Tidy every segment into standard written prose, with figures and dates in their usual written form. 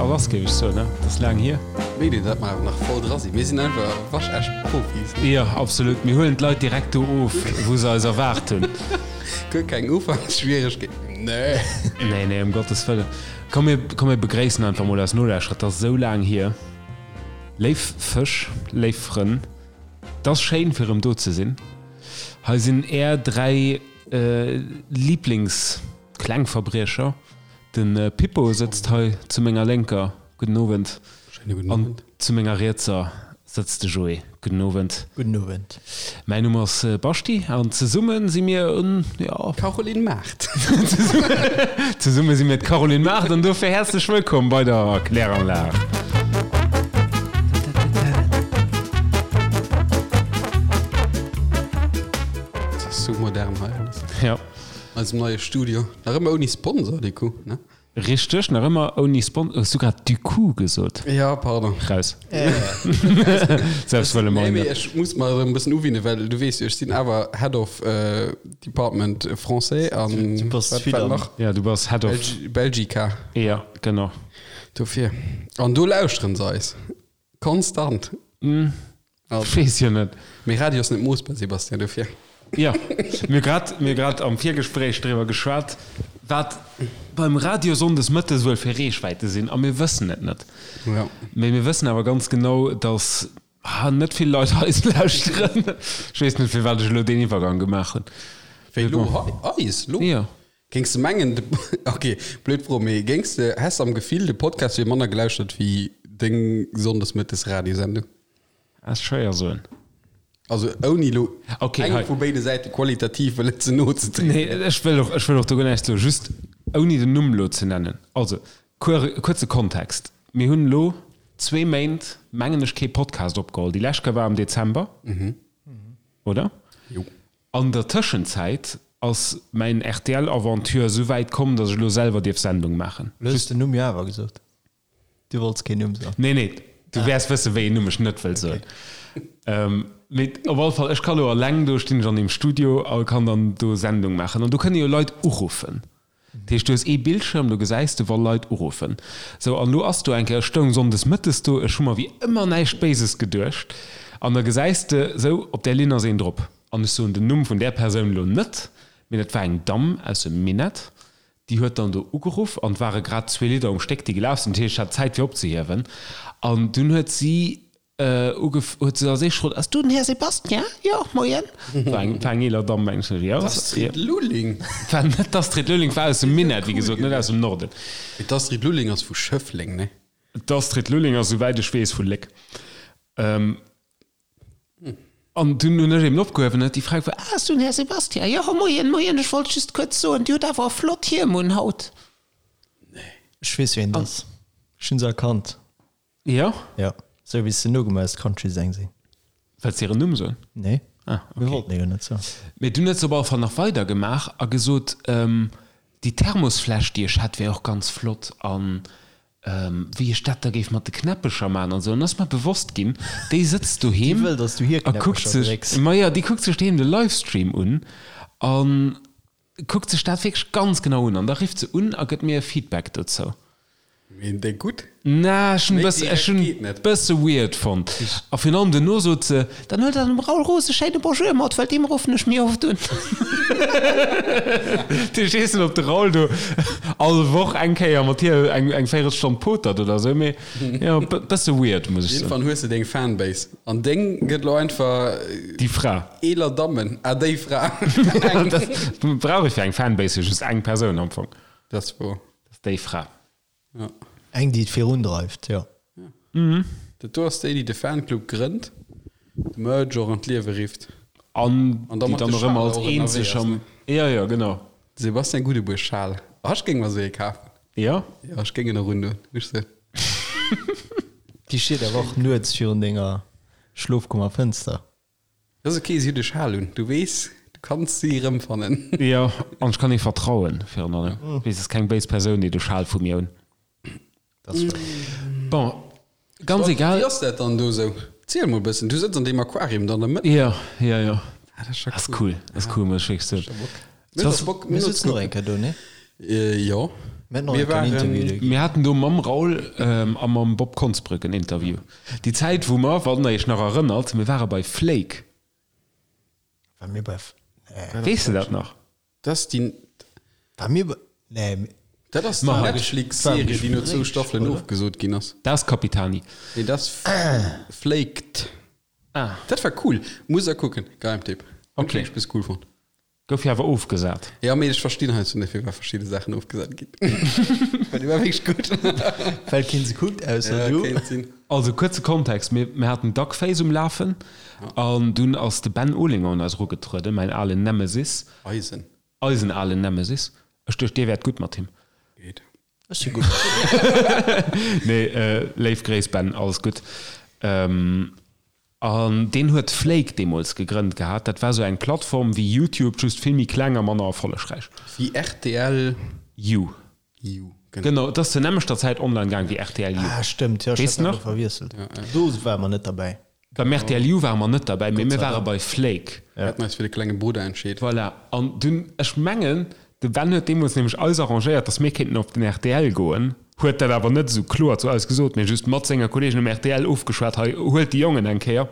A lass, géif ech soen, ne? Et ass laang hier. Wéi dir dat mer nach voll dra sinn. Mir sinn einfach waschecht Profis. Jo, absolut. Mir huelen d'Leit direkt do of, wou se eis erwaart hunn. Guer keng Ufanksschwieregkeeten. Nee. Nee, nee, ëm Gottes Wëllen. Komm, mir, komm, mir begréissen einfach mol eis Nolauschterer. Et ass esou laang hier. Léif Fësch, léif Frënn, et ass schéin, fir erëm do ze sinn. Hei sinn är 3 Lieblingsklengverbriecher. De Pippo sëtzt hei zu menger Lénker, gudden Owend. Schéine gudden Owend. An zu menger Rietser sëtzt de Joé, gudden Owend. Gudden Owend. Mäin Numm ass Baschi an zesumme si mir en, jo. Caroline Mart. Zesumme si mir d'Caroline Mart an dofir häerzlech wëllkomm bei der Kläranlag. Dat ass sou modern hei alles. Jo. Eisem neie Studio. Nach ëmmer ouni Sponsor, du coup, ne? Richteg, nach ëmmer ouni Sponsor. Hues du grad du coup gesot? Ja, pardon. Raus. Selbst wëlle mer Nee, mee ech muss mer erëm e bëssen uwinne, well du weess jo, ech sinn awer Head of Department Français an Du bass wat vill wat am. nach? Ja, du bass Head of. Belgica. Ja, genau. Dofir. An do lauschteren se eis. Konstant. Ech weess jo net. Mee Radio ass net moossbar, Sébastien, dofir. Jo, mir hu grad, mir hu grad am Virgespréich driwwer geschwat, wat beim Radio sonndes mëttes wuel fir Reechwäite sinn, a mir wëssen et net. Jo. Mee mir wëssen awer ganz genau, datt net vill Leit eis lauschteren. Ech weess net, firwat ech elo deen Iwwergang gemaach hunn. Wéi elo hei? Eis elo? Jo. Géings de mengen, de, ok, blöd Fro, mee géings de, häss am Gefill, de Podcast wier manner gelauschtert wéi deng Sonndesmëttes Radiosendung? Ass schwéier soen. Also ouni elo Ok, engem hei. vu béide Säite qualitativ wëllen ze no ze trieden. Nee, ech wëll och, ech wëll och do guer näischt soen, just ouni den Numm elo ze nennen. Also, kuer, kuerze Kontext, Mir hunn elo zwee Méint, mengen ech, kee Podcast opgeholl. Déi lescht Kéier war am Dezember, oder? Jo. An der Tëschenzäit ass mäin RTL-Aventure esou wäit komm, datt ech elo selwer dierf Sendung maachen. Lo hues de den Numm jo awer gesot. Du wollts keen Numm soen. Nee, nee, du wäers wëssen, wéi een Numm ech net wëll soen. Mee op alle Fall, ech ka lo eleng do, stinn ech an deem Studio a kann dann do Sendung maachen. An do kënne jo Leit uruffen. Dat heescht, du hues ee Bildschirm, do gesäis de, wa Leit uruffen. Sou, an elo ass do eng Kéier, ech stoung sonndes mëttes do, ech hu mer wéi ëmmer näischt Béises geduecht, an da gesäis de, sou, op där Linn ass een drop. An ech soen den Numm vun där Persoun elo net, mee dat war eng Damm aus dem Minett, déi huet dann do ugeruff, an et ware grad zwee Lidder um Stéck, déi gelaf sinn, dat heescht, ech hat Zäit fir opzehiewen. An dunn huet si ugef, huet se als éischt gefrot, Ass du den Här Sebastien? Jo, moien. War eng, war eng eeler Damm, mengen ech. Jo, D'Astrid Lulling? War net d'Astrid Lulling, war aus dem Minett, wéi gesot, net aus dem Norden. Mee d'Astrid Lulling ass vu Schëffleng, ne? D'Astrid Lulling ass, souwäit ech weess, vu Léck. An dunn hunn ech eben opgehuewen, huet déi Fra gefrot, Ah, ass du den Här Sebastien? Jo, moien, moien, ech wollt just kuerz soen, Dir hutt awer e flott Hiem un haut. Ech weess, wien et ass. Ech hunn se erkannt. Jo? Jo, sou wéi s de nogemaach hues, Country-Säng sinn. Wëlls de hiren Numm soen? Nee, Ah, mir okay. wollten e jo net soen. Mee dunn huet se op alle Fall nach weider gemaach a gesot, déi Thermosfläsch, déi ech hätt, wär och ganz flott an wéi ech dat da géif mat de Knäppecher maachen an esou. An ass mer bewosst ginn, déi sëtzt Déi doheem wëll, dass du hir a kuckt Knäppecher sech, drécks. majo, déi kuckt sech doheem de Livestream un an kuckt sech dat wierklech ganz genau un. An da rifft se un a gëtt mir e Feedback dozou. Mee déi gutt? Na, ech hunn Méi bësse, ech direkt hunn geet net. bësse weird fonnt. A virun allem duerno sot se, Dann huet der dem Raoul Roos e schéine Bonjour mat, well deem ruffen ech méi oft un. Ech weess net, ob de Raoul do all Woch eng Kéier mat hir eng, eng Véirelstonn potert oder esou, mee jo, bësse weird, muss ech soen. Iergendwann hues de deng Fanbase. An deng gëtt lo einfach. Déi Fra. Eeler Dammen. Ah, déi Fra. Eng. Dat brauch ech fir eng Fanbase jo just eng Persoun am Fong. Dat ass wouer. Dat ass déi Fra. Ja. Eng, déi et virundreift, jo. Ja. Dat do ass déi, déi de Fanclub grënnt, de Merch och an d'Liewe rifft. An An da déi mat dann de och ëmmer Schal als och ënnerwee eenzeg ass, am. ne? Ja, ja, genau. Sebastian Gudebuer Schal. Ah, ech géing mer esou ee kafen. Ja? Ja, ech géing en och undoen, muss ech soen. Déi steet awer och nuets virun denger Schlofkummerfënster. Dat ass ok, si huet e Schal un, du weess, du kanns si erëmfannen. Jo, an ech kann hir vertrauen, virun allem. Weess, ass keng béis Persoun, déi de Schal vu mir un. Dat ass wouer. Bon, ganz egal. Wéi ass dat dann do esou? Ziel mol e bëssen, du sëtz an deem Aquarium do an der Mëtt. Jo, jo, jo. Ah, dat ass scho Ass cool. cool, ass cool, muss ech wierklech soen. Mir huet och Bock, Mir sëtzen och eng Kéier do, nee? Jo. Mir haten och Mir enk en Interview waren- do ginn. Mir haten do mam Raoul a mam Bob Konsbrück en Interview. Déi Zäit, wou mer, wann der iech nach erënnert, mir ware bei Flake. War mir bei F-, nee. Weess de dat nach? Dat ass déi. War mir bei, nee. Dat ass déi Netflix-Serie, déi no zwou Staffelen ofgesot ginn ass. Dat ass Capitani. Nee, dat ass Flaked. Ah. Dat war cool. Muss der kucken. Geheimtipp. Hunn ech Okay. wierklech bis cool fonnt. Gouf jo awer ofgesat. Jo, mee ech verstinn heiansdo net, firwat verschidde Saachen ofgesat ginn. Well déi war wierklech gutt. Well keen se kuckt, ausser Ja, du. kéint sinn. Also kuerze Kontext, mir, mir haten Duckface um Lafen an dunn ass de Ben Olinger un eis erugetrueden, mäin alen Nemesis. Eisen. Eisen alen Nemesis. Ech duecht, dir wäert gutt mat him. Geet. Ech si gutt mat him. Nee, léif Gréiss Ben, alles gutt. An deen huet Flake deemools gegrënnt gehat. Dat war sou eng Plattform wéi YouTube, just vill méi kleng a manner erfollegräich. Wéi rtl. You. You, genau. Genau, et ass zur nämmlechter Zäit online gaang wéi rtl You. Ah, stëmmt, jo, ech Weess hat de dat nach? elo verwiesselt. Do ware mer net derbäi. Beim rtl You ware mer net derbäi, mee Gott mir sei ware Dank. bei Flake. Mir haten eis fir de klenge Brudder entscheet. Voilà, an dunn, ech mengen, de Ben huet deemools nämlech eis arrangéiert, datt mir kéinten op den rtl goen, huet dat awer net esou kloer zu eis gesot, mee just mat senger Kolleegen um rtl ofgeschwat, hei, huelt déi Jongen eng Kéier,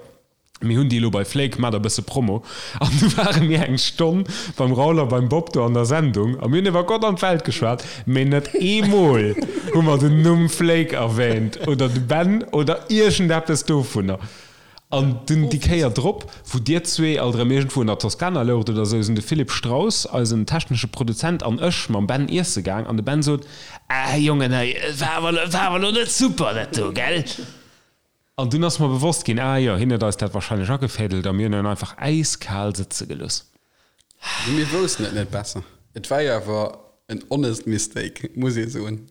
mir hunn déi elo bei Flake, maacht e bësse Promo. An du ware mir eng Stonn beim Raoul a beim Bob do an der Sendung a mir hunn iwwer Gott an d'Welt geschwat, mee net eemol hu mer den Numm Flake erwähnt oder de Ben oder iergendeppes dovunner. An dunn déi Kéier drop, wou dir zwee alt erëm iergendwou an der Toskana loucht oder esou, sinn de Philippe Straus, eisen technesche Produzent, an ech mam Ben iesse gaang an de Ben sot, Ah Jongen, hei, et war awer, et war awer elo net super dat do, gell? An dunn ass mer bewosst ginn, Ah jo, hien huet eis dat wahrscheinlech agefädelt a mir hunn en einfach äiskal sëtze gelooss. Mee mir woussten et net besser. Et war jo awer en honest mistake, muss ee soen.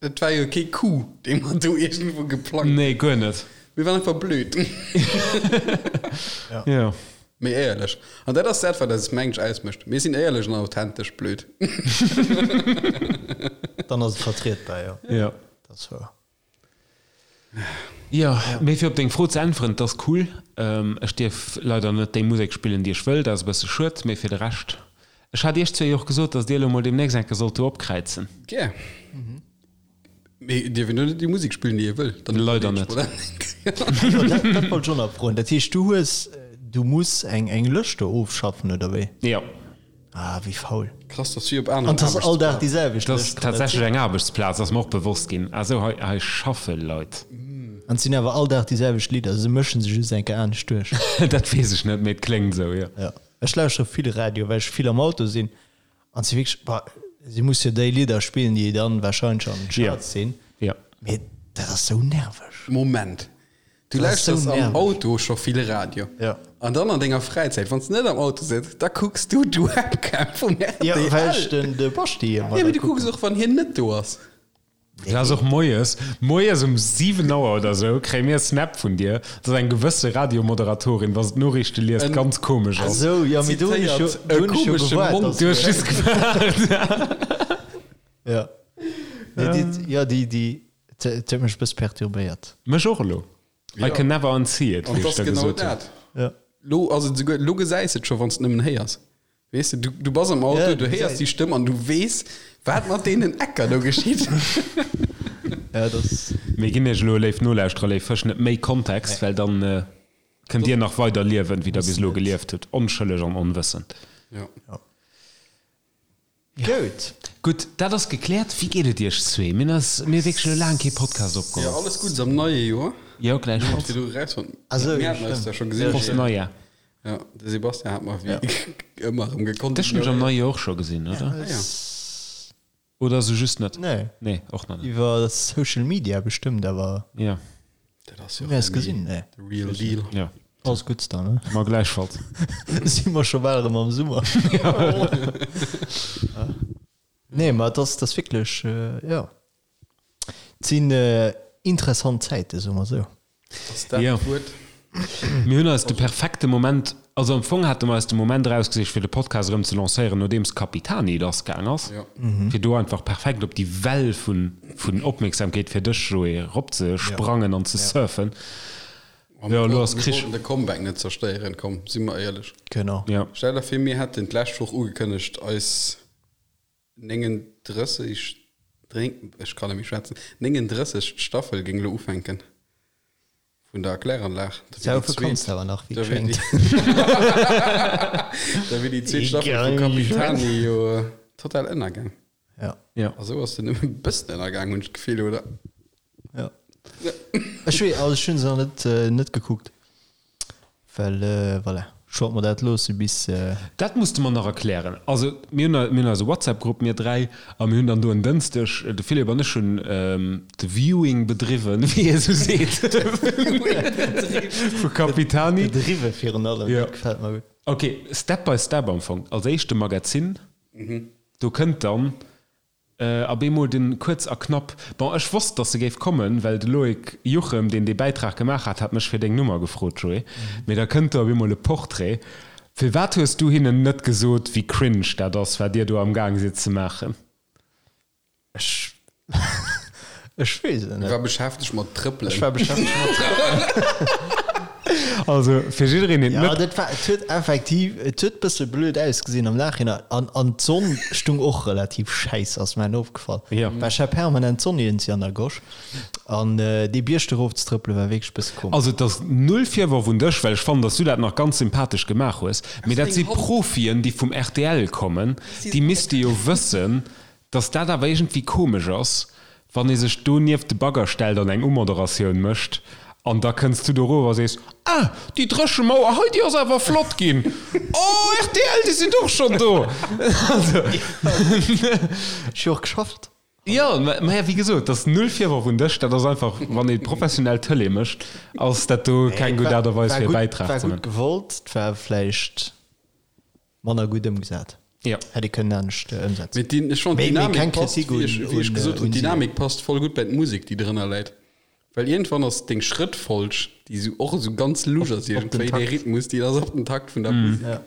Et war jo kee Coup, dee mer do iergendwou geplangt hunn. Nee, guer net. Mir waren einfach blöd. Jo. Mee éierlech. An dat ass dat, wat eis mensch ausmécht. Mir sinn éierlech an authentesch blöd. Dann ass et vertrietbar, jo. Jo. Dat ass wouer. Jo, mee fir op deng Fro ze äntweren, et ass cool. Ech dierf leider net déi Musek spillen, déi ech wëll, dat ass e bësse schued, mee fir de Rescht. Ech hat iech zwee jo och gesot, datt dir elo mol deemnächst eng Kéier sollt do opkräizen. Gär. Mee dierf een do net déi Musek spillen, déi ee wëll? Dann Leider net. Jo, dat, dat wollt ech och nach froen. Dat heescht, du hues, du muss eng, eng Lëscht do ofschaffen, oder wéi? Jo. Ah, wéi faul. Krass, dass wéi op aneren An 't ass all Dag déi Aarbechtsplazen. selwecht Dat ass Lëscht, kann dat tatsächlech sinn? eng Aarbechtsplaz, ass mer och bewosst ginn. Also hei, hei schaffe Leit. An 't sinn awer all Dag déi selwecht Lidder, se mëschen se just eng Kéier anescht duerch. Dat weess ech net, mee et kléngt esou, jo. Jo, ech lauschtere vill Radio, well ech vill am Auto sinn. An si wierklech, bah, si muss jo déi Lidder spillen, déi dann wahrscheinlech an den Charts sinn. Jo. Mee dat ass sou nerveg. Moment, du Dat ass sou lauschters am nerveg. Auto scho vill Radio. Jo. An dann an denger Fräizäit, wann s de net am Auto sëtz, da kucks du d'Webcam vum RTL. Jo, well ech den de Baschi ëmmer Jo, mee da du kucks kucken. och, wann hien net do ass. Dat ass och moies, moies um 7 Auer oder sou kréie mir e Snap vun dir, dass eng gewësse Radiomoderatorin, wa se d'Noriichte liest, ganz komesch ass. Esou, jo, mee do hunn ech jo, Zitéiert, do e hunn ech jo komesche gewaart, Mond. dass Du hues just gewaart. Ja. Nee, déi, jo, déi, déi, et huet mech e bësse perturbéiert. Mech och elo. I can never unsee it, An wéi et ech ass da genau gesot hunn. dat. Ja. Lo ass et esouguer, lo gesäis et scho, wann s de nëmmen héiers. Weess de, du, du bass am Auto, Ja, du héiers déi Stëmm an du weess, wat mat deenen Ecker do geschitt. Ja, das. Mir ginn iech elo, léif Nolauschterer, léif Fësch, net méi Kontext, well dann kënnt dir nach weider liewen, wéi der bis elo gelieft hutt, onschëlleg an onwëssend. Ja. Goud. Gutt, dat ass gekläert. Wéi geet et iech zwee? Mir hunn eis, mir hu wierklech elo laang kee Podcast Ja, opgeholl. alles Guddes am neie Joer. Jo, gläichfalls. Fir du erausfonnt. Ah sou, Mir jo, haten eis stimmt. da scho gesinn. Prost Neujahr. Ja, de Sebastian hat mer wéi ëmmer erëm gekonnt. Dech hunn ech am neie Joer och scho gesinn, oder? Ah, ja. Oder sou just net? Nee. Nee, och nach net. Iwwer Social Media bestëmmt, awer Ja, Dat ass jo hu mir eis gesinn, nee. the real deal. ja. Alles Guddes dann, ne? Ma gläichfalls. Si mer scho bal erëm am Summer. Nee, ma et ass, et ass wierklech, jo. Et sinn interessant Zäiten, soe mer esou. Ass dat Ja. d'Wuert? Mir hunn eis de perfekte Moment, also am Fong hate mer eis de Moment erausgesicht, fir de Podcast erëm ze lancéieren, nodeems Capitani lassgaang ass, Ja. fir do einfach perfekt op déi Well vun, vun Opmierksamkeet fir dech, Joé, eropzesprangen an ze surfen. Ja, elo ass Mir Krich. wollten de Comeback net zerstéieren, komm, si mer éierlech. Genau. Ja. Stell der vir, mir hätten d'lescht Woch ugekënnegt, eis 39. Ech kann net méi schwätzen. 39. Staffel géing elo ufänken vun der Kläranlag. Da wier déi zweet, da wier déi, da wier déi zweet Staffel vu Capitani jo total ënnergaang. Ja. Ja. A sou ass se nëmmen e bëssen ënnergaang, hunn ech d'Gefill, oder? Ja. Ech wee, also ech hunn se nach net, net gekuckt. Well voilà, ech wollt mer dat loosse bis. Dat muss de mer nach erklären. Also mir hunn mir hunn eise WhatsApp-Grupp, mir 3, a mir hunn dann do en Dënschdeg, de Philippe an ech hunn de Viewing bedriwwen, wéi ee sou seet, vu Capitani. Bedriwwe virun allem, dat gefält mer gutt. Ok, Step by Step am Fong. Als éischt de Magazin, do kënnt dann A bemol den kuerz a knapp. Bon, ech wosst, dass se géif kommen, well de Loïc Juchem, deen dee Bäitrag gemaach hat, hat mech fir deng Nummer gefrot, Joé. Mee da kënnt do op eemol e Portrait. Firwat hues du hinnen net gesot, wéi cringe dat ass, wat dir do am Gaang sidd ze maachen? Ech, ech weess et net. War beschäftegt mat Trëppelen. Ech war beschäftegt mat Trëppelen. Also fir jiddereen deen et net. Ja, dat war, et huet effektiv, et huet bësse blöd ausgesinn am Nachhinein an, an d'Sonn stung och relativ schäiss, ass mer opgefall. Ja. Well ech hat permanent d'Sonn iergendwéi an der Gosch an dee Bierg do erof ze trëppele war wierklech bësse komesch. Also et ass null Virworf un dech, well ech fannen, dass du dat nach ganz sympathesch gemaach hues, mee dat si Profien, déi vum rtl kommen, déi misste jo wëssen, Dass dat awer iergendwéi komesch ass, wann ee sech do nieft de Bagger stellt an eng Umoderatioun mécht an da kënns du do erof a sees, Ah, déi Dréchemauer hei, déi ass awer flott ginn. Oh, rtl, déi sinn och schonn do. Also. Ech hu och geschafft. Jo, mä wéi gesot, dat ass null Virworf un dech. Dat ass einfach, wann ee professionell Tëlee mécht, ass dat do keng gutt Aart a Weis, fir e Bäitrag ze man. War gutt gewollt, et war vläicht. Manner gutt ëmgesat. Jo. Hätt ee kënnen anescht ëmsetzen. Mee déi, ech fannen Mee, mee d'Dynamik keng passt, Kritik wéi un, ech, wéi ech un, gesot hunn, un si. d'Dynamik passt voll gutt bei d'Musek, déi drënner läit. Well iergendwann ass deng Schrëttfolg, déi sou och esou ganz lusch ass Op den iergendwéi, dee Takt. Rhythmus, déi ass op den Takt vun der Musek. Ja.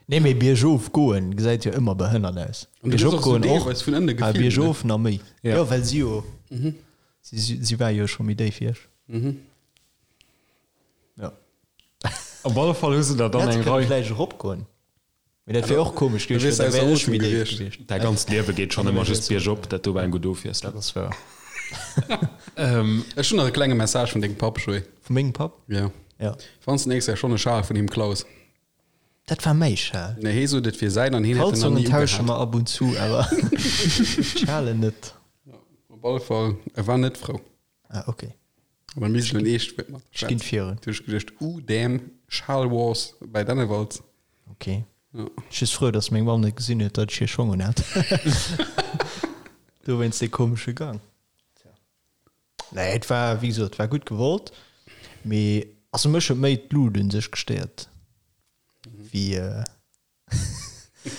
Nee, mee biergof goen gesäit jo ëmmer behënnert aus. An du gëss Biergop och esou goen och, deelweis vun ënne awer gefilmt, ne? biergof nach méi. Ja. Jo, well si jo, si, si war jo scho méi déif wéi ech. Ja. Op alle Fall hu se der dann Hätt eng kënne Rei. vläicht eropgoen. Mee dat wier och komesch Da gewiescht, wiers well du da wär ausser ech méi Otem déif gewiescht. gewiescht. Däi ganzt Liewe geet schonn ëmmer just biergop, dat do war eng gutt Ofwiesslung. Dat ass wouer. Ech hunn nach e klenge Message vun dengem Papp, Joé. Vu mengem Papp? Ja. Ja. Wann s de nächst Kéier schonn e Schal vun him klaus. Dat war mäi Schal. Nee, hee sot et wier säin an hien hätt en nach Kalzongen ni tausche ugehat. mer ab und zu, awer Schalen net. Op alle Fall, e war net frou. Ah, okay. An da misst ech en eescht Wuert mat Ech ginn virun. Du hues geduecht, uh, damn, Schal Wars bei Dennewald. Okay. Ja. Ech just frou, dass meng Mamm net gesinn huet, datt ech hir Schong un hat. Dowéinst dee komesche Gang. Tja. Nee, et war, wéi gesot, et war gutt gewollt, mee also mech huet méi d'Lut un sech gestéiert wéi.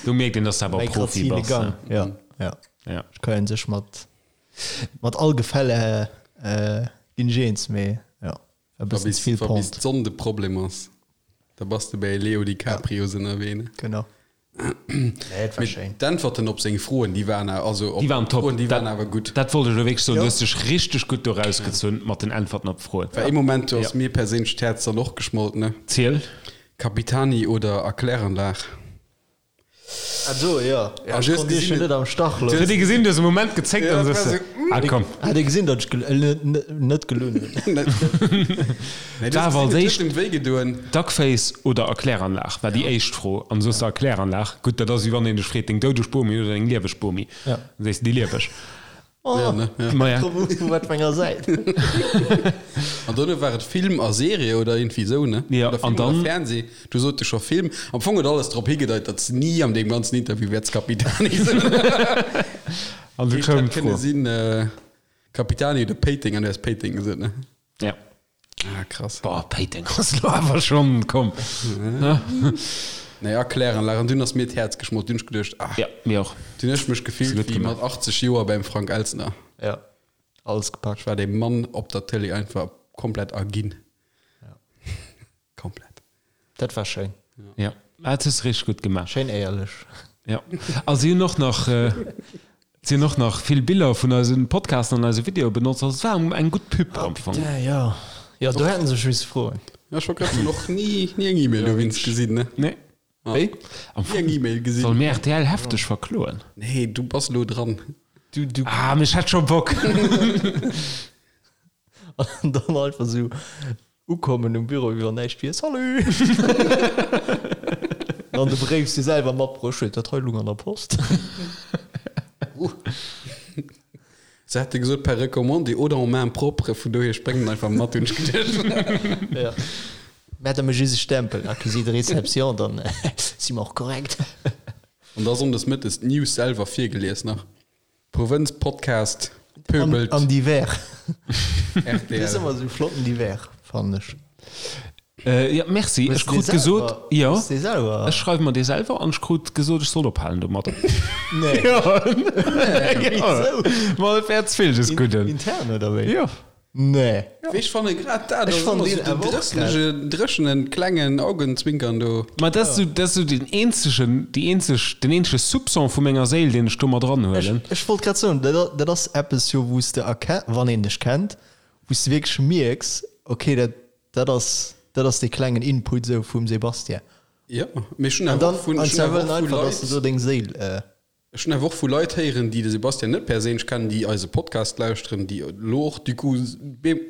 Do mierkt een, dass du awer Mäi Profi grazile bass. Gang. Ne? Ja, ja. Ja. Ech kann sech mat mat all Gefälle äh, ginn ech eens, mee ja, war e Wa bëssen bis, ze vill wa bis Pente. d'Sonn de Problem ass, da bass de bäi Leo DiCaprio ënnerwee, ne? Genau. Nee, et war Mee schéin. d'Äntwerten op seng Froen, déi waren awer, also op Déi waren top. d'Froen, déi waren Dat, awer gutt. dat wollt ech elo wierklech soen. Du Ja. hues dech richteg gutt do rausgezunn mat den Äntwerten op d'Froen. Well ee Moment, do ass Ja. mir perséinlech d'Häerz dann och geschmolt, ne? Ziel. Capitani oder Erkläranlag? Ah do, jo. Ah, Ech du hues konnt iech jo gesinn, net am Stach Du loossen. hues gesinn, du hues e Moment gezéckt Ja, an dat sech war se, sou, ah komm. Hat ee gesinn, datt ech net gelunn hunn? Nee, du War hues awer als gesinn, et huet éischt em wéi gedoen. Duckface oder Erkläranlag war déi éischt Fro. An du soos Erkläranlag. Gutt, dat ass wéi wann een dech freet, deng doudeg Bomi oder deng lieweg Bomi. Ja. Dann sees de déi lieweg. Oh, Ja, ne? Ja. Maja. Vu wat fir enger Säit? An dono war et Film a Serie oder iergendwéi esou, ne? Ja, Oder Film an dann- oder Fernseh. Du sot de scho Film. Am Fong huet alles drop higedeit, datt s ni an deem ganzen Interview wäerts Capitani soen. An du Heescht, koum hätt kënne d'Fro. sinn, äh, Capitani oder Péiteng an du häss Péiteng gesot, ne? Ja. Ah, krass. Boah, Péiteng ass lo awer schonn, komm. Nee, Erkläranlag. An dunn ass mir d'Häerz geschmolt. Dunn hunn ech geduecht, ah, Ja, mir och. dunn hunn ech mech gefillt gutt wéi gemaach. mat 80 Joer beim Frank Elstner. Ja, alles gepackt. Ech war deem Mann op der Tëlee einfach komplett erginn. Komplett. Dat war schéin. Ja, dat hues de richteg gutt gemaach. Schéin éierlech. Ja. A si hunn och nach, si hunn och nach vill Biller vun eise Podcasten an eise Videoe benotzt. Also et war eng gutt Pub am Fong. Putain, jo. Jo, do hätten se sech misse froen. Ja, ech wollt grad soen, och ni, ni eng E-Mail dowéinst gesinn, ne? Nee. Wéi? Am Ni eng Fong E-Mail gesinn. solle mir rtl hefteg verkloen. Nee, du bass elo dran. Du, du. Ah, mee ech hätt scho Bock. An dann einfach sou ukommen um Büro, wéi wann näischt wier, Salut! An de Bréif si selwer matbruecht huet, dat hei lung an der Post. Se hätte gesot per recommandé oder en main propre, vun dohier ech bréngen en einfach mat, hunn ech geduecht. Ja. Mä da méch just e Stempel, Accusé de réception, dann si mer och korrekt. An da sonndes mëttes d'News selwer virgelies nach. Provënz Podcast pöbelt. An divers. RTL. Dat ass ëmmer esou flotten divers, fannen ech. Jo, merci. Ech krut gesot, jo, ech schreiwe mer dee selwer an ech krut gesot, ech soll ophalen domadder. Nee. Jo. Wisou? Ma et wär ze vill des Gudden. Intern oder wéi? Jo. Nee. Wéi ech fanne grad dat ass ëmmer sou den drësselege, dréchenen, klengen Augenzwinkern do. Ma dat ass sou, dat ass sou den eenzegen, déi eenzeg, den eenzege Soupçon vu menger Séil, deen ech do mat eranhuelen. Ech wollt grad soen, dat, dat ass eppes jo, wou s de erken, wann een dech kennt, wou s de wierklech mierks, okay, dat, dat ass, dat ass dee klengen Input sou vum Sébastien. Jo, mee ech hunn awer och vun, An ech hunn awer dann och vu einfach, dass Leit. de do deng Séil. Ech hunn awer och vu Leit héieren, déi de Sebastian net perséinlech kennen, déi eise Podcast lauschteren, déi elo och du coup,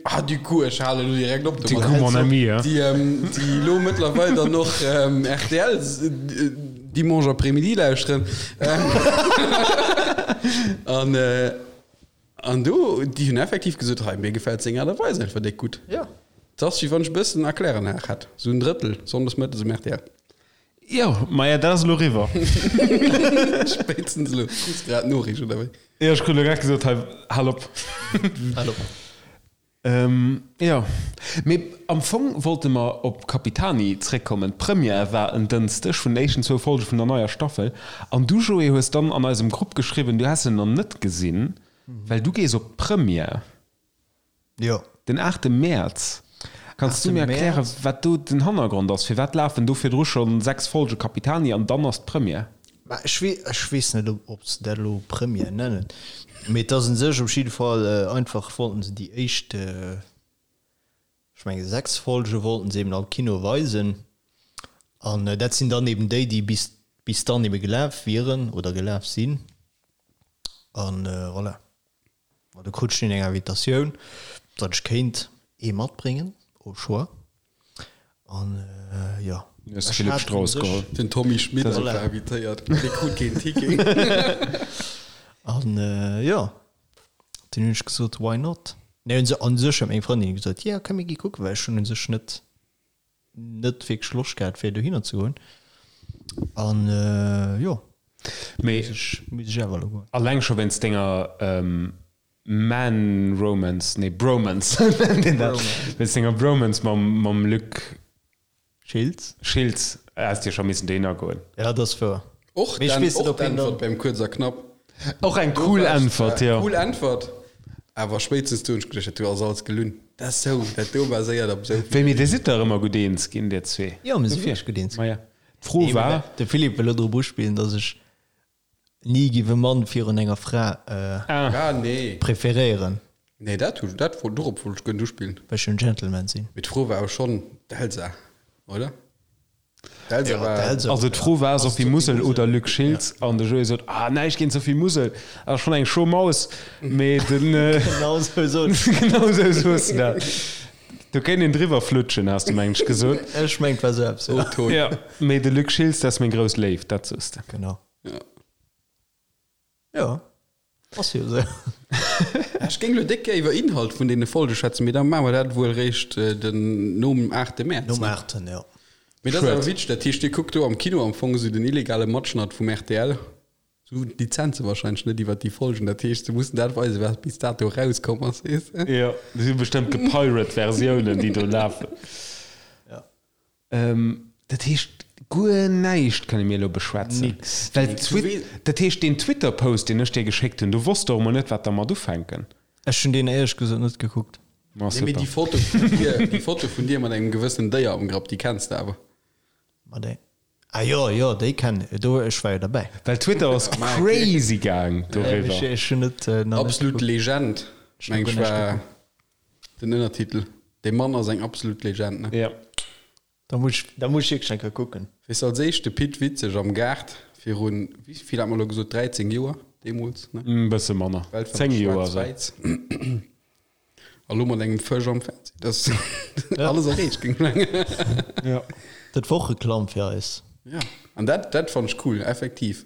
ah du coup, ech halen elo direkt op Du coup, mon ami, hein. déi, déi elo mëttlerweil dann och rtl dimanche après-midi lauschteren. An, an do, déi hunn effektiv gesot, hei, mir gefält seng Aart a Weis einfach déck gutt. Jo. Et ass, wéi wann ech e bëssen Erkläranlag hätt, esou en Drëttel sonndes mëttes um rtl. Jo, maja, dat ass elo eriwwer. Spéitstens elo. Krus grad d'Noriicht, oder wéi? Jo, ech krut elo grad gesot, hei, hal op. Hal op. Jo, mee am Fong wollte mer op Capitani zréckkommen. D'Première war en Dënschdeg vun den éischten zwou Folge vun der neier Staffel. An du, Joé, hues dann an eisem Grupp geschriwwen, du häss se nach net gesinn, well du gees op d'Première. Jo. Den 8 Mäerz. Kanns du mir erklären, wat do den Hannergrond ass? Firwat lafen do virdru scho 6 Folge Capitani an dann ass d'Première? Mä ech wee, ech weess net, ob se dat elo Première nennen, mee et ass un sech op jidde Fall einfach, wollten se déi éischt, ech menge 6 Folge wollten se eben am Kino weisen an dat sinn dann eben déi, déi bis, bis dann ebe gelaf wieren oder gelaf sinn an voilà. Ma do krut ech dunn eng Invitatioun, datt ech kéint ee matbréngen, au choix. An jo. Du hues de Philippe Strauss geholl. Den Tommy Schmitt ass och invitéiert, mee dee krut keen Ticket. An jo, dunn hunn ech gesot, why not? Nee, un sech huet meng Frëndin gesot, jo, komm mir gi kucken, well ech hunn un sech net net wierklech Loscht gehat fir dohinner ze goen an jo Mee muss ech awer elo goen. Alleng scho wéinst denger Man-Romance, nee Bromance nennt een dat, wéinst denger Bromance mam Luc Schiltz. Schiltz häss de jo scho missen dohinner goen. Ja, dat ass wouer. Och Mee ech weess net, ob hien d'Äntwert beim Kuerz a Knapp. Och eng cool Äntwert, jo. Cool Äntwert, awer spéitstens do hunn ech geduecht, dat do ass alles gelunn. Dat ass sou, dat do baséiert op sou. Wéi, mee dir sidd dach ëmmer gutt eens ginn, dir zwee. Jo, mir si wierklech gutt eens ginn. Maja, d'Fro war. De Philippe wëll elo drop uspillen, datt ech ni giff e Mann virun enger Fra Ah, nee. preferéieren. Nee, dat hu, dat wollt, dorop wollt ech guer net uspillen. Well ech jo en Gentleman sinn. Mee d'Fro war awer schonn d'Elsa, oder? D'Elsa war. Also d'Fro war Sophie Musel oder Luc Schiltz an de Joé sot, ah näischt géint Sophie Musel, ass schonn eng scho Maus, mee den. Genau sou sot ech. Genau sou sos de dat. Do kéint een driwwer flutschen, has de mengen ech gesot. Ech mengen et war sou eppes, jo. O-Ton. Jo, mee de Luc Schiltz, dat ass meng grouss Léift, dat sos de. Genau. Ja. Jo, ass jo esou. Ech géing elo déck gär iwwer Inhalt vun deene Folge schwätzen, mee da maache mer dat wuel réischt den nom 8 Mäerz. Nom 8, jo. Mee dat ass awer witzeg, dat heescht dir kuckt do am Kino am Fong esou den illegale Matschnatt vum rtl. Se hunn d'Lizenze wahrscheinlech net iwwer déi Folgen, dat heescht se mussen dat weisen, wat bis dato erauskomm ass, weess de. Jo, dat si bestëmmt gepirate Versiounen, déi do lafen. Ja. Dat heescht, guer näischt kënne mir elo beschwätzen. Nix. Well d'Twit, dat heescht, deen Twitter-Post, deen ech dir geschéckt hunn, do wosst der och mol net, wat der mat ufänken. Ech hunn deen éierlech gesot net gekuckt. Ma Nee, mee super. déi Foto vun dir, déi Foto vun dir mat engem gewëssenen Déier am Grapp, déi kenns de awer. Ma déi, ah jo, jo, déi kennen, do, ech war jo derbäi. Well Twitter ass crazy gaang doriwwer. Ech hunn net, nach net Absolut gekuckt. Legend, Ech hunn meng guer ech näischt war gekuckt. den Ënnertitel. Dee Mann ass eng absolut Legend, ne? Ja. Da muss ech, da muss ech wierklech eng Kéier kucken. Weess als éischt de Pit Witzeg am Gaart virun, wéi vill hat mer elo gesot, 13 Joer? deemools, ne? E bësse manner, Welt 10 Joer esou. Schwaarz-Wäiss. A lo mat engem Fësch am Fernseh. Dat ass alles erreecht, géing ech mengen. Ja. Dat wor och Reklamm fir eis. Ja, an dat, dat fannt ech cool, effektiv.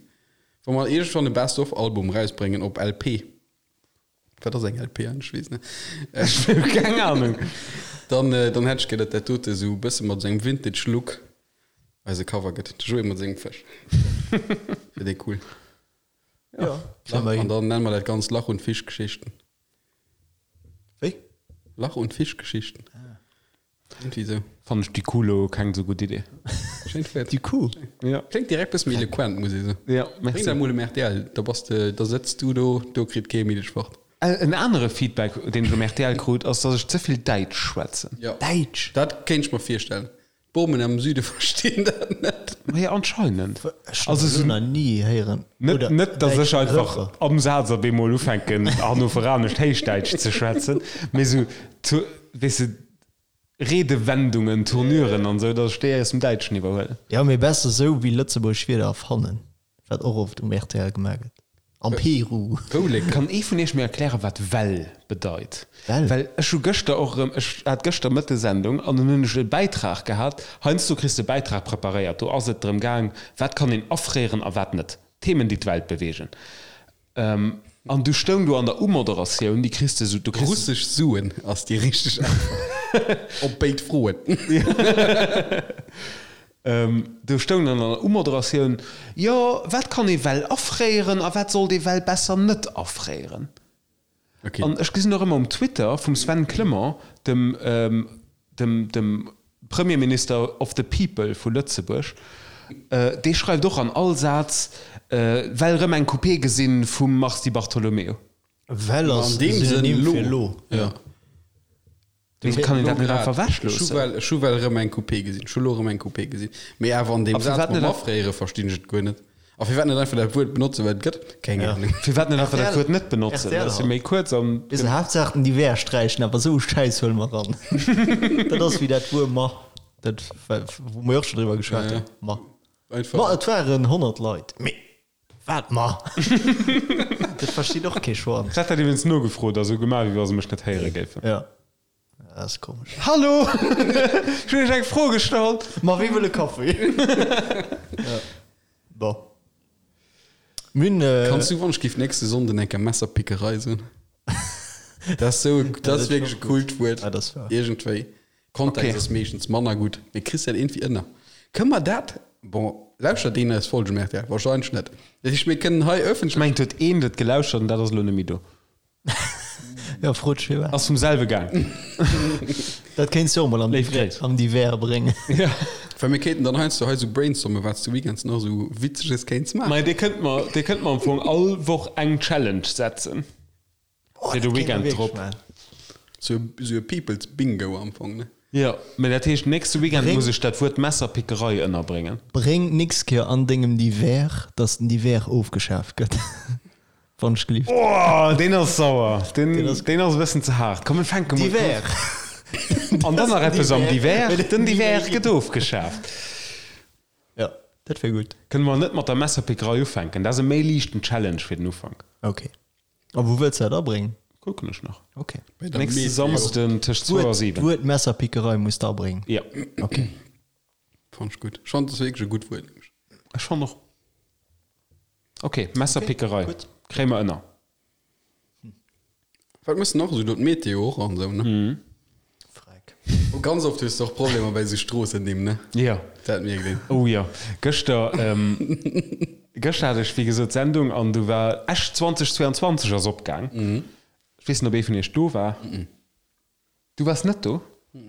Wa mer iergendwann e Best of Album rausbréngen op LP, wat ass eng LP eigentlech? Ech weess net. Ech hu keng Ahnung. Dann, dann hätt ech gär, datt dat dote esou e bësse mat esou engem Vintage Look eise Cover gëtt. De Joé mat sengem Fësch. Wier dee cool. Ja, kréie mer An hin. dann nenne mer dat Ganzt Lach und Fischgeschichten. Wéi? Lach und Fischgeschichten. Irgendwie sou. Fannen ech déi Kuh lo keng sou gutt Idee. Schéint Wuert. Déi Kuh? Ja. Kléngt direkt bësse méi eloquent, muss ee soen. Ja, Bréng merci. dat mol um rtl, da bass de, da sëtz du do, do kritt kee méi dech fort. En anere Feedback, deen ech um rtl krut, ass, dass ech ze vill Däitsch schwätzen. Ja. Däitsch? Dat kéint ech mer virstellen. D'Bomen am Süde verstinn dat net. Maja, anscheinend. Ech hunn Also dat sou elo nach ni héieren. net, Oder net, dass ech däitschen einfach Refrain. am Saz op eemol ufänken, hannoveranescht Héichdäitsch ze schwätzen, mee sou, zu, weess de, Redewendungen, Tournuren an sou, dass ech déi aus dem Däitschen iwwerhuelen. Jo, mee besser sou wéi lëtzebuergesch Wierder erfannen, wat och oft um rtl gemaach gëtt. Am Peru. Woulek. Kann ee vun iech mir erklären, wat well bedeit? Well? Well ech hu gëschter och erëm, ech hat gëschter Mëtte Sendung an dunn hunn ech e Bäitrag gehat. Heiansdo kriss de e Bäitrag preparéiert, do ass et drëm gaang, wat kann een afréieren a wat net. Themen, déi d'Welt beweegen. An du stoung do an der Umoderatioun, déi kriss de sou, du kriss. Russesch Suen ass déi richteg Äntwert op béid Froen. Do stoung dann an der Umoderatioun, Jo, wat kann ee well afréieren a wat sollt ee well besser net afréieren? Okay. An ech gesinn och ëmmer um Twitter vum Sven Clement, dem, dem, dem Premierminister of the people vu Lëtzebuerg, dee schreift och an all Saz, Well rëm eng Coupé gesinn vum Mars Di Bartolomeo. Well ass An deem Sënn Synonym lo. fir lo. Ja. Mee kann een dat net einfach Ech hu ewechloossen? well, ech hu well erëm eng Coupé gesinn. Ech hu lo erëm eng Coupé gesinn. Mee awer an deem A Saz firwat mam net Afréiere verstinn ech et guer net. A firwat net einfach dat Wuert benotzen, wat et gëtt? Keng Ahnung. Firwat net einfach dat RTL Wuert net benotzen? RTL Dat ass jo halt. méi kuerz an. Weess de, Haaptsaach den Divers sträichen, awer esou Schäiss huele mer ran. Dat ass wéi dat Wuer ma, dat wou mer jo och scho driwwer geschwat Ja, ja. hunn. Ma. Einfach. Ma et waren 100 Leit. Mee wat ma? Dat versteet och kee Schwanz. Ech hat dat iwwregens nogefrot a sou gemaach, wéi wa se mech net héiere géifen. Ja. Dat ass komesch. Hallo! Ech hunn iech eng Fro gestallt. Ma wie wëll e Kaffi? Ja. Bon. Mir hunn. Kanns du, wann ech géif nächste Sonnden eng Kéier Messerpickerei soen? Dat ass sou, dat ass wierklech e coolt Wuert. Ja, dat ass wahr. Iergendwéi. Kontext Okay. ass meeschtens manner gutt, mee kriss dat iergendwéi ënner. Kënne mer dat, bon, lauschtert een eis Folgen um rtl? Wahrscheinlech net. Dat heescht, mir kënnen hei Ech ëffentlech. mengen, et huet een dat gelauschtert an dat ass elo net méi do. Ja, frot dech firwat. Ass vum selwe gaang. Dat kéints du och mol am Léif Gréiss. am Divers bréngen. Ja. Well mir kéinten dann heiansdo hei sou brainstormen, wat s de weekends nach sou Witzeges kéints maachen. Mei, dir kënnt mer, dir kënnt mer am Fong all Woch eng Challenge setzen. Oh, Fir de dat kéint mer Weekend wierklech drop. maachen. Sou e People's Bingo am Fong, ne? Jo, mä dat heescht, nächste Weekend Bréng- muss ech dat Wuert Messerpickerei ënnerbréngen. Bréng d'nächst Kéier an dengem Divers, dass den Divers ofgeschaaft gëtt. Wann ech gelift. Oh, deen ass sauer. Deen, Deen ass- deen ass e bëssen ze haart. Komm, mir fänke mol. Divers! An dann nach eppes am Divers. Den Divers Divers gëtt ofgeschaaft. Ja, dat wär gutt. Kënne mer net mat der Messerpickerei ufänken? Dat ass e méi liichten Challenge fir den Ufank. Okay. A wou wëlls de dat abréngen? Kucken ech nach. Okay. Bei der Nächste Meteo. Samsden tëscht 2 a 7. D'Wuert Messerpickerei muss de abréngen. Ja. Okay. Fand ech gutt. Ech fand, dat ass wierklech e gutt Wuert, nämlech. Ech fand och. Okay, Messerpickerei. Okay, gutt. Kréie mer ënner. Wat muss nach esou do d'Meteo och an esou, ne? Freck. Oh, ganz oft hues de och Problemer bei esou Stroossennimm, ne? Ja. Dat mierkt een. Oh jo. Gëschter, ähm, gëschter hat ech wéi gesot Sendung an du war Esch 2022 ass opgaang. Ech weess net, ob ee vun iech do war. Du waars net do?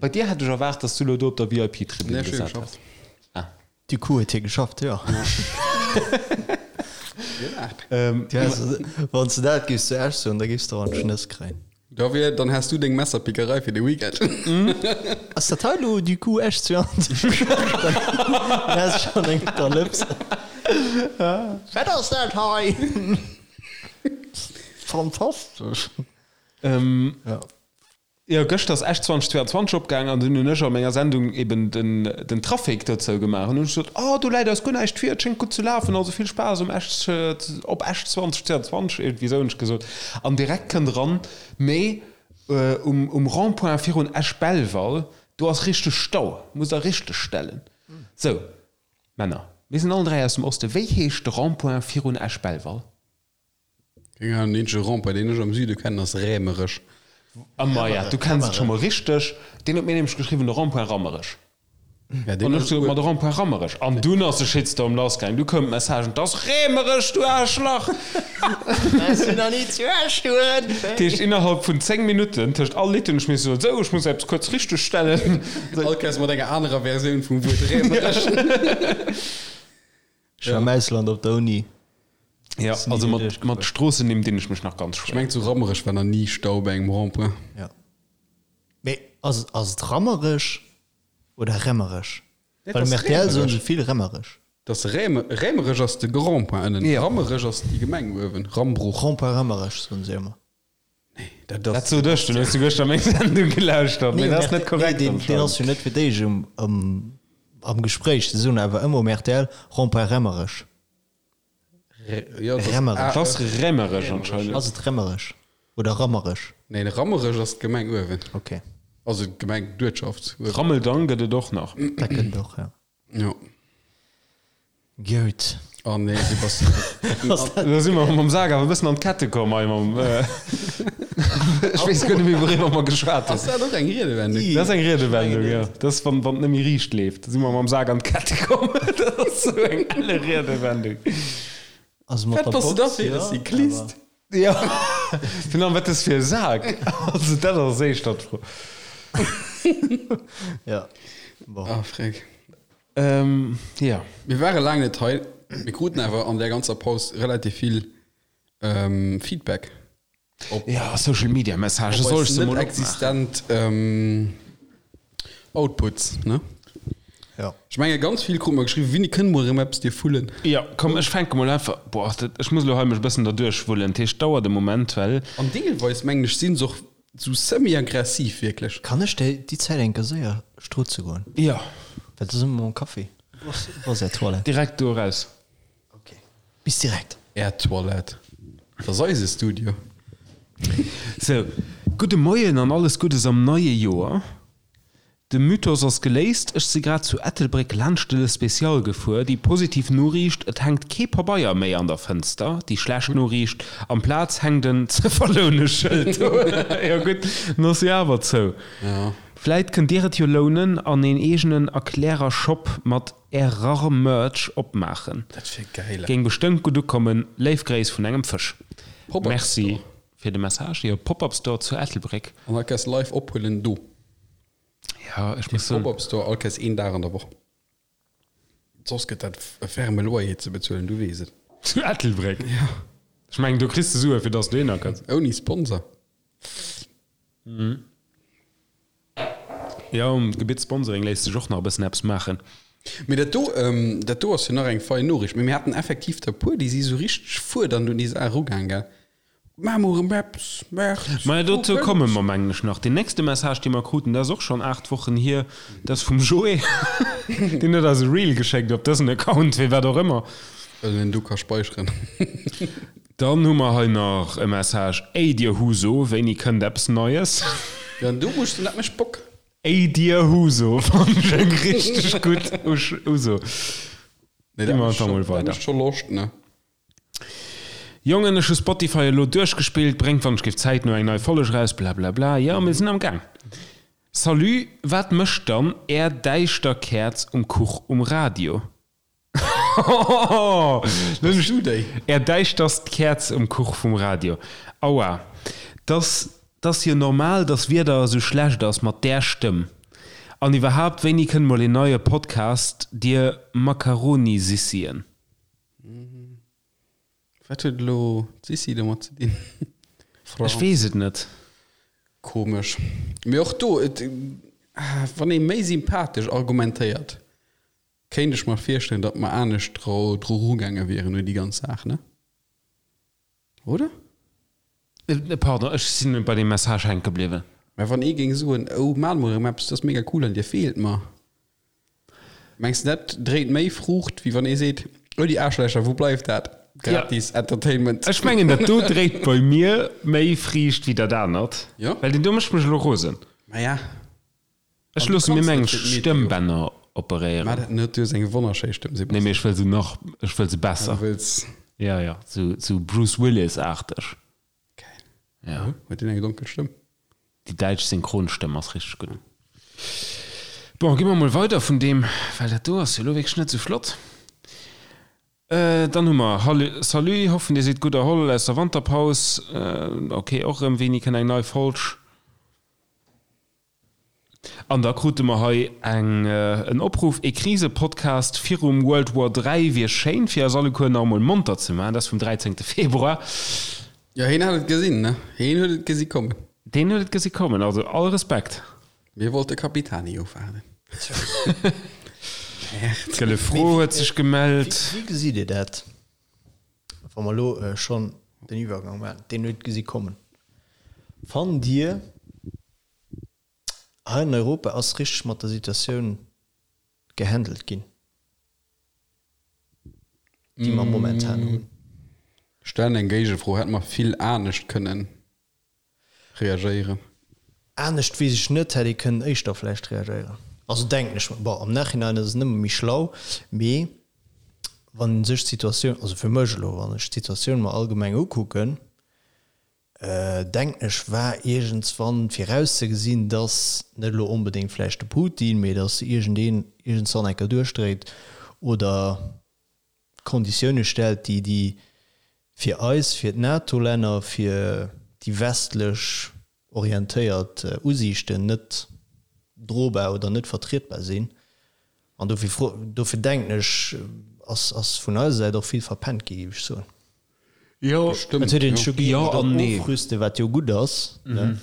Bei dir hätt ech erwaart, dass du lo do op der VIP-Tribün Nee, ech hu gesat geschafft. häss. Ah. Du coup huet hie geschafft, jo. Ähm, Du häss, wann s de dat géifs zu Esch soen, da géifs de och an d'Schnëss kréien. Da wier, dann häss du deng Messerpickerei fir de Weekend. Ass dat hei lo du coup Esch 22? Dann häss schonn eng op der Lëps. Wat ass dat hei? Fantastesch. Ähm, Ja. Jo, gëschter ass Esch 2022 opgaang an dunn hunn ech a menger Sendung eben den, den Trafic dozou gemaach. An hunn ech gesot, Oh, do läit eis guer näischt vir, et schéngt gutt ze lafen, also vill Spaass um Esch, op Esch 2022, iergendwéi esou hunn ech gesot. An direkt kënnt eran, Mee um, um Rond-point virun Esch-Belval, do ass richteg Stau, musst der richteg stellen. Sou, Männer, mir sinn allen 3 aus dem Osten, wéi heescht de Rond-point virun Esch-Belval? Keng Ahnung, den eenzege Rond-point, deen ech am Süde kennen, ass Rämerech. A maja, du kenns et scho mol richteg. Deen huet mir nämlech geschriwwen, de Rond-point Rammerech. Ja, deen An ech sot, ma de Rond-point Rammerech. An dunn ass de Shitstorm lassgaang. Du koumen d'Messagen, 't ass Rämerech, du Aarschlach! Bass du nach ni zu Esch gefuer? Dat heescht, innerhalb vun 10 Minutten, tëscht all Lidd hunn ech misse soen, sou, ech muss eppes kuerz richtegstellen. All Kéiers mat enger anerer Versioun vum Wuert Rämerech. Ech war am Ausland op der Uni. Ja, also mat, mat Stroossennimm dinn ech mech nach ganz schwéier. Ech mengen zu Rammerech war nach ni Stau bei engem Rond-point. Ja. Mee ass, ass et Rammerech oder Remmerech? Well um rtl soen se vill Remmerech. Dat ass Räme, Rämerech ass de Rond-point ënnen, Rammerech ass déi Gemeng uewen, Rambruch. Rond-point Rammerech soen se ëmmer. Nee, dat ass. Dat sot ech, dunn hues du gëschter meng Sendung gelauschtert, mee dat ass net korrekt Nee, deen, deen ass jo net fir d'éischt um, um, am Gespréich. Se soen awer ëmmer um rtl Rond-point Remmerech. Jo, dat ass Remmerech. Dat ass Remmerech anscheinend. Ass et Remmerech oder Rammerech? Nee, Rammerech ass d'Gemeng uewen. Ok. Also d'Gemeng, d'Uertschaft uewen. Rammeldang gëtt et och nach. Dat gëtt et och, jo. Jo. Gout. Oh nee, du bass. Da si mer mam Sak awer e bëssen an d'Kette komm hei mam. Ech weess guer net méi, wouriwwer mer geschwat hunn. Ass dat och eng Riedewendung? Dat ass eng Riedewendung, jo. Dat ass, wann wann et net méi riicht leeft. Da si mer mam Sak an d'Kette komm. Dat ass esou eng elle Riedewendung. Also mat Wat der bass du da Box, fir e jo, Cyclist? awer. Jo, virun allem, wat ass fir e Sak? Also dat ass éischter d'Fro. Ja, bon. Ah, freck. Ähm, jo. Mir ware laang net hei. Mir kruten awer an där ganzer Paus relativ vill Feedback op. Ja, Social Media Messagen, soll ech se mol opmaachen? Existent Outputs, ne? Ja. Ech menge ganz vill krute mer geschriwwen, Winni, kënne mer erëm eppes dir vullen? Ja, komm, ech fänke mol einfach, boah, dat, ech muss elo hei mech e bëssen derduerch wullen, dat heescht, dauert e Moment, well. An deelweis, mengen ech, si se och sou semi-aggressiv, wierklech. Kann ech déi déi Zäit eng Kéier séier strutze goen? Ja. Well do si mer mam Kaffi. Wou ass, wou ass är Toilette? Direkt do eraus. Ok, bis direkt. Är Toilette, dat ass eise Studio. Sou, gudde Moien an alles Guddes am neie Joer. De Mythos ass geléist, ech si grad zu Ettelbréck laanscht de Le Spécial gefuer. Déi positiv Noriicht, et hänkt kee Pabeier méi an der Fënster. Déi schlecht Noriicht, amplaz hänkt en ze verloune Schëld do. Jo gutt, en ass jo awer zou. Vläit kënnt dir et jo lounen an een eegenen Erklärer-Shop mat Error-Merch opmaachen. Dat wier geil. Géing bestëmmt gutt ukommen. Léif Gréiss vun engem Fësch. Pop-up Merci Store. fir de Message. Jo, Pop-up Store zu Ettelbréck. An all Kéiers live ophuelen do. Ja, ech muss soen. Pop-up Store all Kéiers een Dag an der Woch. Soss gëtt dat e ferme Loyer ze bezuelen, du weess et. Zu Ettelbréck? Ja. Ech mengen, do kriss de Sue fir dass du dohinner kënns. Ouni Sponsor. Jo, um Gebitt Sponsoring léisst sech och nach e bëssen eppes maachen. Mee dat do, dat do ass jo nach eng fein Noriicht. Mee mir haten effektiv der e puer, déi si sou richteg fuerdernd un déi Saach erugaang, gell? Maach mol erëm eppes, März. Maja, dozou komme mer, mengen ech, nach. Deen nächste Message, dee mer kruten, dat ass och schonn 8 Wochen hier, dat ass vum Joé. Deen huet eis e Reel geschéckt op dësen Account, fir wat och ëmmer. Well en do ka speicheren. Dann hu mer hei nach e Message, Ey dir Huso, wéini kënnt eppes Neies? Jo, an do muss ech soen, dat mécht Bock. Ey dir Huso fannen ech eng richteg gutt Uso. Nee, Gi dat mer mécht einfach mol scho, dat weider. mécht scho Loscht, ne? Jongen, ech hu Spotify elo duerchgespillt, bréngt wann ech géif zäitno eng nei Folleg eraus, blablabla. Jo, mir sinn am Gaang. Salut, wat mécht dann är däischter Käerz um Kuch um Radio? Bass du déi? Är däischterst Käerz um Kuch vum Radio. Aua, dass t'ass jo normal, dass Wieder esou schlecht ass mat där Stëmm. An iwwerhaapt, wéini kënnt mol een neie Podcast, dir Macaronisissien? Wat huet elo d'Sissi domat ze dinn? Ech weess et net. Komesch. Mee och do, et, wann ee méi sympathesch argumentéiert, kéint ech mer virstellen, datt mer anescht dru erugaange wieren un déi ganz Saach, ne? Oder? Pardon, ech sinn bei deem Message hänke bliwwen. Mä wann ee géing soen, oh maacht mol erëm eppes, dat ass mega cool an dir feelt mer, mengs de dat dréit méi Fruucht, wéi wann ee seet, oh déi Aarschlächer, wou bleift dat gratis Entertainment? Ech mengen dat do dréit bei mir méi Friicht wéi dat anert, well deen do mécht mech elo rosen. Maja. Ech loosse mir meng Stëmmbänner operéieren. Maach dat net, du hues eng wonnerschéi Stëmm, Sebastian. Nee, mee ech wëll se nach, ech wëll se besser. Du wëlls. Ja, ja, sou, sou Bruce Willis-aarteg. Geil. Ja. Huet deen eng donkel Stëmm? Déi däitsch Synchronstëmm ass richteg gutt. Bon, gi mer mol weider vun deem, well dat do ass jo elo wierklech net sou flott. Dann hu mer, Hallo, Salut, hoffen dir sidd gutt erholl aus der Wanterpaus. Ok, och erëm, wéini kënnt eng nei Folg? An da krute mer hei eng en Opruff, E Krise-Podcast virum World War 3 wier schéin, fir eis alleguer nach emol monter ze maachen. Dat ass vum 13. Februar. Jo, heen hat et gesinn, ne? Heen huet et gesi kommen. Deen huet et gesi kommen, also all Respekt. Mir wollte Capitani ofwaarden. D'Gëlle Fro huet sech gemellt. Wéi gesitt Dir dat, wa mer elo schonn den Iwwergang maachen? Deen huet gesi kommen. Fannt Dir, Hei an Europa ass richteg mat der Situatioun gehandelt ginn, déi mer momentan hunn. Stellen eng Géigefro, Hätte mer vill anescht kënnen reagéieren? Anescht weess ech net, hätt ee kënnen éischter vläicht reagéieren. Also denken ech mer. Bon, am Nachhinein ass et nëmme méi schlau, mee wann ee sech d'Situatioun, also fir mech elo, wann ech d'Situatioun mer allgemeng ukucken, Denken ech, war iergendswann virauszegesinn, dass, net elo onbedéngt vläicht de Putin, mee dass iergendeen iergendswann eng Kéier duerchdréit oder Konditioune stellt, déi déi fir eis, fir d'NATO-Länner, fir déi westlech orientéiert Usiichten net drobar oder net vertrietbar sinn. An dofir fro, dofir denken ech, ass, ass vun eiser Säit och vill verpennt gi, géif ech soen. Jo, Et huet een scho jo an nee. Ofrüste, wat jo gutt ass, ne?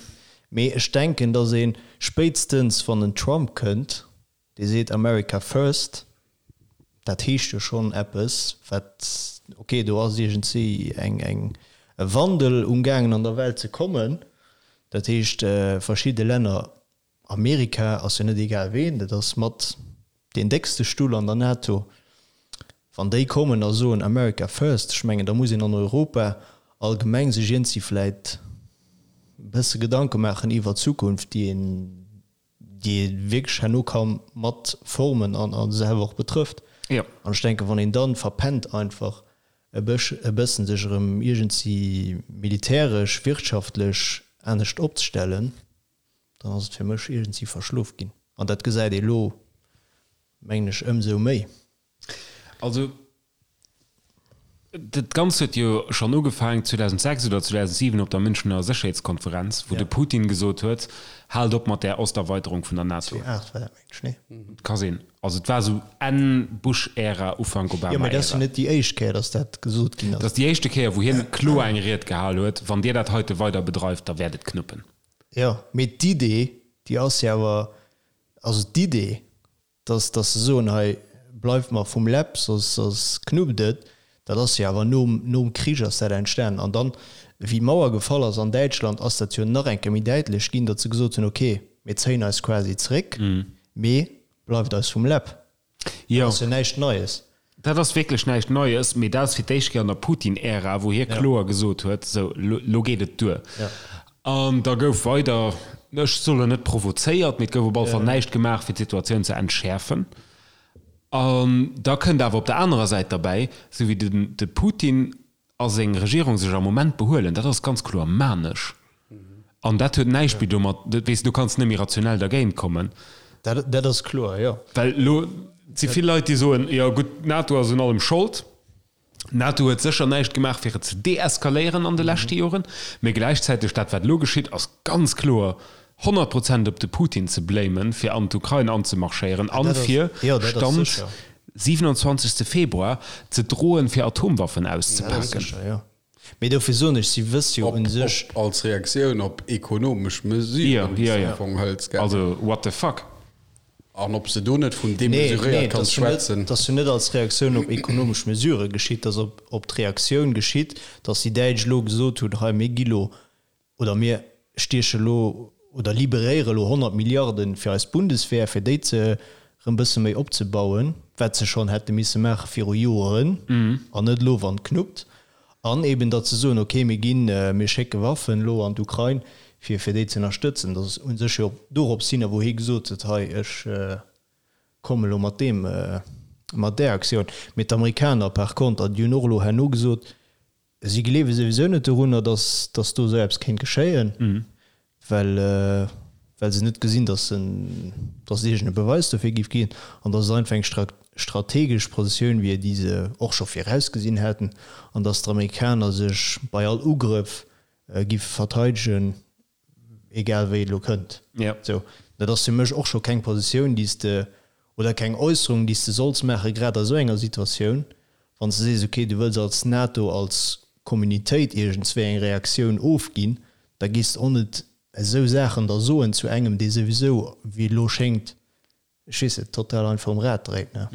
Mee ech denken, datt ee spéitstens, wann en Trump kënnt, dee seet America first, dat heescht jo schonn eppes, wat, okay, do ass iergendwéi eng, eng, e Wandel umgaangen an der Welt ze kommen. Dat heescht, verschidde Länner Amerika ass jo net egal ween, dat ass mat deen déckste Stull an der NATO. Wann déi kommen a soen America first, ech mengen da muss een an Europa allgemeng sech iergendwéi vläit e bësse Gedanke maachen iwwer d'Zukunft, déi een, déi ee wierklech herno ka mat formen an a selwer och betrëfft. An ech denken, wann een dann verpennt einfach e bëssen sech erëm iergendwéi militäresch, wirtschaftlech anescht opzestellen, dann ass et fir mech iergendwéi verschlof ginn. An dat gesäit ee lo, mengen ech, ëmsou méi. Also, dat Ganzt huet jo schonn ugefaangen 2006 oder 2007 op der Münchener Sécherheetskonferenz, wou de Putin gesot huet, Haalt op mat där Osterweiterung vun der NATO. 2008 war dat, mengen ech, nee? Ka sinn. Also et war esou Enn Bush-Ära, Ufank Obama-Ära. Jo, mä dat ass jo net déi éischt Kéier, datt dat gesot ginn ass. Dat ass déi éischte Kéier, wou hien kloer eng Ried gehal huet, Wann Dir dat heite weider bedreift, da wäert et knuppen. Jo, mee d'Idee, déi ass jo awer, also d'Idee, dass, dass se soen, hei bleift mer vum Läpp, soss, soss knuppt et, dat ass jo awer nom, nom Krich ass dat entstanen. An dann, wéi d'Mauer gefall ass an Däitschland, ass dat jo nach eng Kéier méi däitlech ginn, datt se gesot hunn, okay, mir zéien eis quasi zréck, mee bleift eis vum Läpp. Jo. Dat ass jo näischt Neies. Dat ass wierklech näischt Neies, mee dat ass fir d'éischt Kéier an der Putin-Ära, wou hie kloer gesot huet, sou, lo geet et duer. An da gouf weider, ech soen net provozéiert, mee et gouf op alle Fall näischt gemaach, fir d'Situatioun ze entschäerfen. An da kënnt awer op der anerer Säit derbäi, sou wéi de Putin a seng Regierung sech am Moment behuelen, dat ass ganz kloer manesch. An dat huet näischt méi domat, weess de, du kanns net méi rationell dergéint kommen. Dat, dat ass kloer, jo. Well elo si vill Leit, déi soen, jo gutt, d'NATO ass un allem Schold. D'NATO huet sécher näischt gemaach, fir et ze deeskaléieren an de leschte Joren. Mee gläichzäiteg, dat wat elo geschitt, ass ganz kloer 100 Prozent op de Putin ze blamen, fir an d'Ukrain anzemarschéieren an fir, Stand 27 Februar, ze droen, fir Atomwaffen auszepaken. Mee dofir soen ech, si wësse jo u sech. Op als Reaktioun op ekonomesch Mesuren, déi se am Fong hëlt, gell? Also, what the fuck? An ob se do net vun demesuréiert kanns schwätzen. Nee, et ass jo net als Reaktioun op ekonomesch Mesurë geschitt, et ass op d'Reaktioun geschitt, datt déi Däitsch elo gesot hunn, hei mir gi lo oder mir stieche lo. oder liberéiere elo 100 Milliarden fir eis Bundeswehr, fir déi ze erëm bësse méi opzebauen, wat se schonn hätte misse maache viru Joeren an net elo wann et knuppt. An eben datt se soen, okay, mir ginn, mir schécke Waffen elo an d'Ukrain, fir fir déi ze ënnerstëtzen. Dat ass u sech jo dorops hin, a wou hie gesot huet, hei ech komme elo mat deem, mat där Aktioun. Mee d'Amerikaner par konter, déi hunn och elo herno gesot, Si gleewe souwisou net dorunner, datt datt do esou eppes kéint geschéien, well well se net gesinn, datt en datt et iergend e Beweis dofir géif ginn an datt et einfach eng strategesch Positioun wier, déi se och scho virausgesinn hätten an datt d'Amerikaner sech bei all Ugrëff giffe verteidegen. Egal wéi et elo kënnt. Ja. Sou, dat ass fir mech och scho keng Positioun, déi s de, oder keng Äusserung, déi s de solls maachen, grad a sou enger Situatioun, wann s de sees, okay, du wëlls als NATO, als Communitéit iergendswéi eng Reaktioun ofginn, da gees de och net esou Saachen da soen zu engem, dee souwisou, wéi et elo schéngt, ech weess net, total einfach um Rad dréit, ne?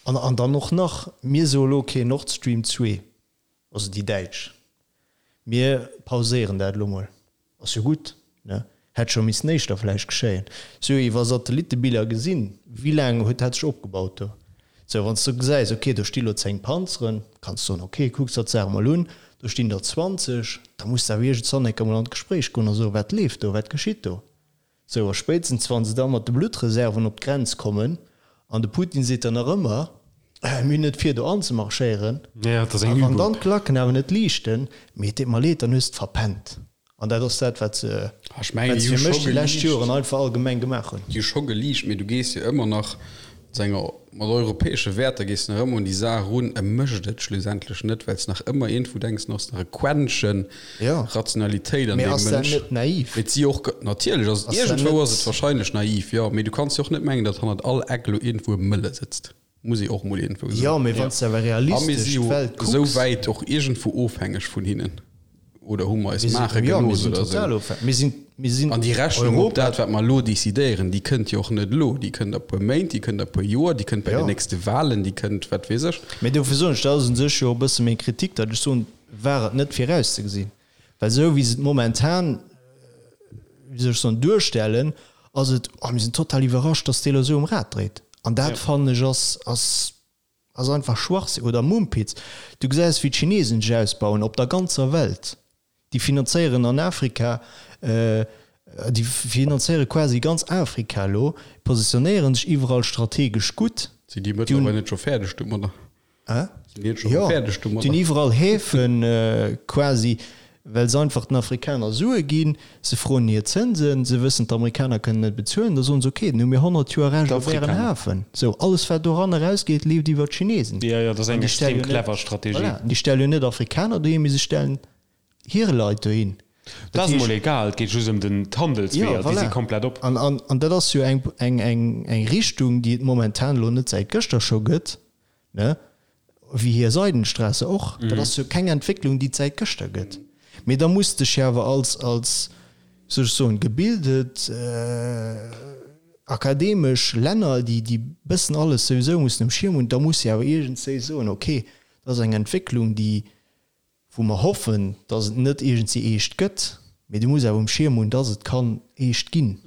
An, an dann och nach, mir soe elo, okay, Nord Stream 2, also déi Däitsch, mir pauséieren dat elo mol, ass jo gutt, ne? Hätt scho missen éischter vläicht geschéien. Si hu iwwer Satellittebiller gesinn, wéi laang huet dat sech opgebaut do. Sou, wann s du gesäis, okay, do sti lo 10 Panzeren, kanns du soen, okay, kucks der d'Saach mol un, do stinn der 20, da muss de awer iergendzwann eng Kéier mol an d'Gespréich goen a soen, wat leeft do, wat geschitt do? Sou, a spéitstens wann se da mat de Bluttreserven op d'Grenz kommen, an de Putin seet dann nach ëmmer, mir hunn net vir do anzemarschéieren, a wann dann d'Klacken awer net liichten, mee et deet mer leed, dann hues de verpennt. An dat ass dat, wat se, wat se fir mech déi lescht Joren einfach allgemeng gemaach hunn. Déi hu scho geliicht, mee du gees jo ëmmer nach mat enger, mat europäesche Wäerter gees de nach ëmmer un déi Saach erun. E mécht et schlussendlech net, well s nach ëmmer iergendwou denks, du hues nach e Quäntchen Rationalitéit an Mee deem ass dat Mënsch. net naiv? Mee et si och, natierlech ass et, Ass dat iergendwou ass net. et wahrscheinlech naiv, jo, mee du kanns jo och net mengen, datt hannert all Eck elo iergendwou e Mëlle sëtzt, muss ee och mol iergendwou Jo, soen. mee wann s de awer A mir realistesch si jo d'Welt esou kucks. wäit och iergendwou ofhängeg vun hinnen, oder hu mer eis Mir sinn, maache jo, mir gelooss sinn oder esou. total ofhängeg. Mir sinn, mir sinn An déi Rechnung op Europa. dat, wat mer elo decidéieren, déi kënnt jo och net elo, déi kënnt a puer Méint, déi kënnt a puer Joer, déi kënnt bei Jo. den nächste Wahlen, déi kënnt wat weess ech. Mee dofir soen ech, dat ass u sech jo e bësse meng Kritik, datt ech soen, war et net virauszegesinn, well esou wéi se et momentan, wéi soll ech soen, duerstellen, ass et, oh mir sinn total iwwerrascht, datt dee elo esou um Rad dréit. An dat fannen ech ass, ass, ass einfach Schwachsinn oder Mumpitz. Du gesäis wéi d'Chinesen sech ausbauen op der ganzer Welt. Déi finanzéieren an Afrika, déi finanzéiere quasi ganz Afrika elo, positionéiere sech iwwerall strategesch gutt. Sinn déi mëttlerweil net scho fäerdeg domadder? Hä? Sinn déi net scho Jo, fäerdeg déi hunn domadder? iwwerall Häfen quasi, well se einfach den Afrikaner Sue ginn. Se froen hir Zënsen, se wëssen, d'Amerikaner kënnen net bezuelen. Da soen se, okay, dann hu mir 100 Joer Recht op ären D'Afrikaner. Hafen. Sou, alles wat doran erausgeet, leeft iwwer d'Chinesen. Jo, jo, dat ass An eng déi stelle extrem jo net, clever Strategie. voilà, déi stelle jo net Afrikaner dohin, mee se stellen hir Leit dohin. Dat ass emol egal, et geet just ëm den d'Handelsweeër, déi si komplett op. An, an, an dat ass jo eng, eng, eng, eng Richtung, déi et momentan elo net säit gëschter scho gëtt, ne, wéi hir Seidenstraße och. Dat ass jo keng Entwécklung, déi et säit gëschter gëtt. Mee da muss dech jo awer als, als, wéi soll ech soen, gebildet, akademesch Länner, déi, déi bëssen alles souwisou mussen um Schierm hunn, da muss de awer iergendswéi soen, okay, dat ass eng Entwécklung, déi, wou mer hoffen, dass et net iergendwéi eescht gëtt, mee du muss awer um Schierm hunn, dass et kann eescht ginn.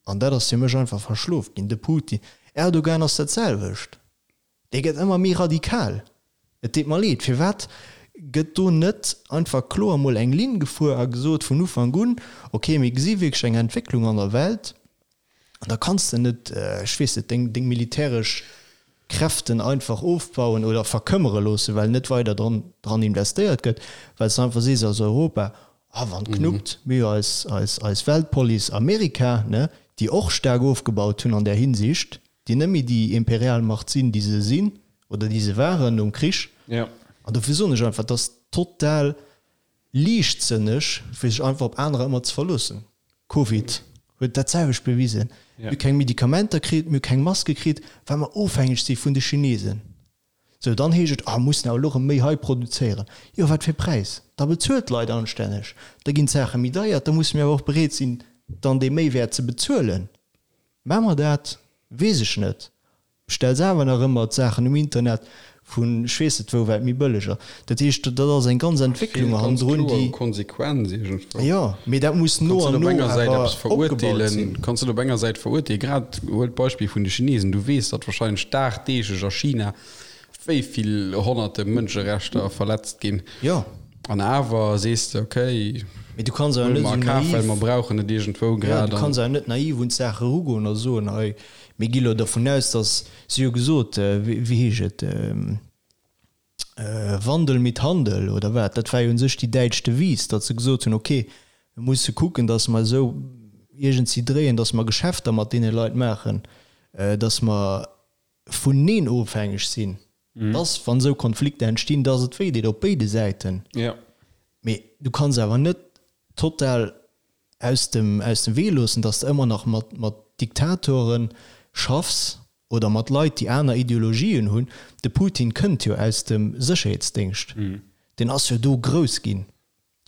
An dat ass fir mech einfach verschlof ginn. De Putin, Erdogan ass dat selwecht, dee gëtt ëmmer méi radikal. Et deet mer leed, firwat gëtt do net einfach kloer mol eng Linn gefuer a gesot vun Ufank un, okay, mir gesi wierklech eng Entwécklung an der Welt, An da kanns de net, ech weess net, deng, deng militäresch Kräften einfach ofbauen oder verkëmmere loossen, well net weider dran, dran investéiert gëtt, well s de einfach sees als Europa, ah, wann et knuppt, mir hu jo eis, eis, eis Weltpolice Amerika, ne, déi och staark ofgebaut hunn an där Hinsicht, déi net méi déi Imperialmacht sinn, déi se sinn oder déi se waren nom Krich. An dofir soen ech einfach, et ass total Liichtsënneg, fir sech einfach op anerer ëmmer ze verloossen. Covid huet dat selwecht bewisen. Mir hu keng Medikamenter kritt, mir hu keng Maske kritt, well mer ofhängeg si vun de Chinesen. Sou, dann heescht et, ah, mussen awer elo erëm méi hei produzéieren. Jo, wat fir Präis? Da bezuelt d'Leit anstänneg, da ginn d'Saache méi deier, da musse mir awer och bereet sinn, dann dee Méiwäert ze bezuelen. Maache mer dat? Weess ech net. Bestells awer nach ëmmer d'Saachen um Internet, Vun ech weess net wou, wat méi bëlleg ass. Dat heescht, dat ass eng ganz Entwécklung hannendrun, déi. Konsequenz iergendwou. Jo, mee dat muss no an no awer opgebaut sinn. Kanns net op enger Säit verurteelen, grad huel d'Beispill vun de Chinesen, du weess, datt wahrscheinlech dagdeeglech a China wéi vill honnerte Mënscherechter verletzt ginn. Jo. An awer sees de, okay, Mee du kanns awer huele net mer a esou Kaf, well naiv. mer brauchen et iergendwou Jo, grad. du kanns awer net naiv un d'Saach erugoen a soen, hei, Mir gi lo dervun aus, dass, si hu gesot, wéi heescht et, Wandel mit Handel oder wat, dat war jo u sech déi däitsch Devise, datt se gesot hunn, okay, mir musse kucken, datt mer esou iergendsi dréien, datt mer Geschäfter mat deene Leit maachen, datt mer vuneen ofhängeg sinn, datt, wann esou Konflikter entstinn, datt et wéideet op béide Säiten. Mee du kanns awer net total aus dem, aus dem Wee loossen, datt s de ëmmer nach mat, mat Diktatore schaffs oder mat Leit, déi aner Ideologien hunn. De Putin kënnt jo aus dem Sécherheetsdéngscht, deen ass jo do grouss ginn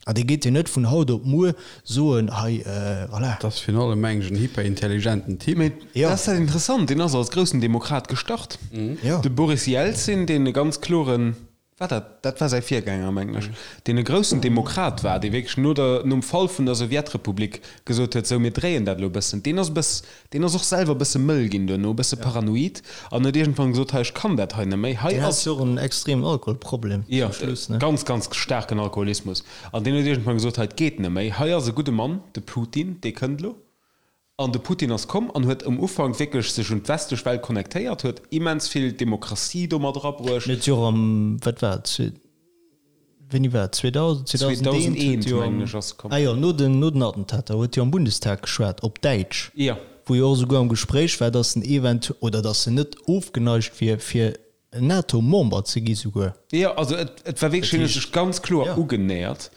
an dee geet jo net vun haut op muer soen, hei, voilà. Dat ass virun allem, meng ech, en hyperintelligenten Typ. Mee dat ass dat Interessant, deen ass als groussen Demokrat gestart. De Boris Jelzin, deen e ganz kloren War dat, dat war säi Virgänger, mengen ech, deen e groussen Demokrat war, dee wierklech no der, nom Fall vun der Sowjetrepublik gesot huet, sou, mir dréien dat elo e bëssen. Deen ass e bëss, deen ass och selwer e bësse mëll ginn duerno, e bësse paranoid an huet iergendwann gesot, hei, ech kann dat hei net méi, hei Deen hat ass. jo och en extremen Alkoholproblem Jo, zum Schluss, ne? ganz, ganz staarken Alkoholismus. An deen huet iergendwann gesot, hei, et geet net méi, hei ass e gudde Mann, de Putin, dee kënnt elo. An de Putin ass komm an huet um Ufank wierklech sech un d'westlech Welt connectéiert, huet immens vill Demokratie do mat erabruecht. Huet jo och am, wat war et, wéini war et, 2000, 2001 huet jo am, mengen ech, ass e komm. Ah jo, no den, no den Attentater huet jo am Bundestag geschwat, op Däitsch, Jo. wou jo och esouguer am Gespréich war, datt en eventu-, oder datt en net ofgeneigt wier, fir NATO-Member ze gi souguer. Jo, also et, et war wierklech, hien huet sech ganz kloer ugenähert.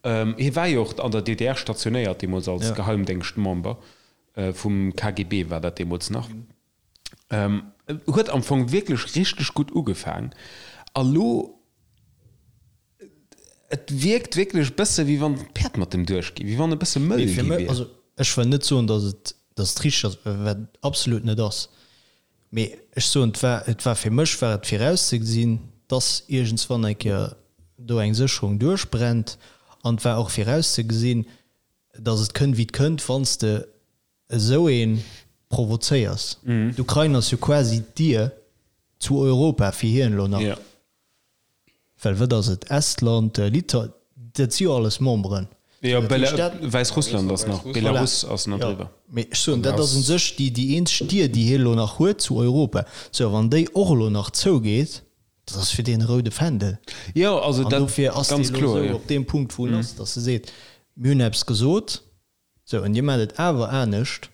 Hie war jo och an der DDR stationéiert deemools als Geheimdéngschtmember, vum KGB war dat deemools nach. Huet am Fong wierklech richteg gutt ugefaang a lo, et wierkt wierklech e bësse wéi wann d'Päerd mat dem duerchgi, wéi wann e bësse mëll gi wier. Also ech wëll net soen, datt et, datt et richteg ass, wat et absolut net ass. Mee ech soen, et war, et war fir mech war et virauszegesinn, dass iergendswann eng Kéier do eng Sécherung duerchbrennt. An et war och virauszegesinn, dass et kënnt wéi et kënnt, wann s de esou ee provozéiers. D'Ukrain ass jo quasi d'Dier zu Europa fir hien elo nach. Well wat ass et, Estland, Litauen, dat si jo alles Memberen. Jo, Wäissrussland ass nach, Belarus ass nach driwwer. Mee ech soen, dat ass u sech déi déi eenzeg Dier, déi hie elo nach huet zu Europa. Sou, a wann déi och elo nach zougeet, dat ass fir deen e roude Fändel. Jo, also An dat dofir ass dee ganz elo kloer, esou jo. op deem Punkt, wou en ass, datt e seet, mir hunn eppes gesot, sou, an dir maacht et awer anescht.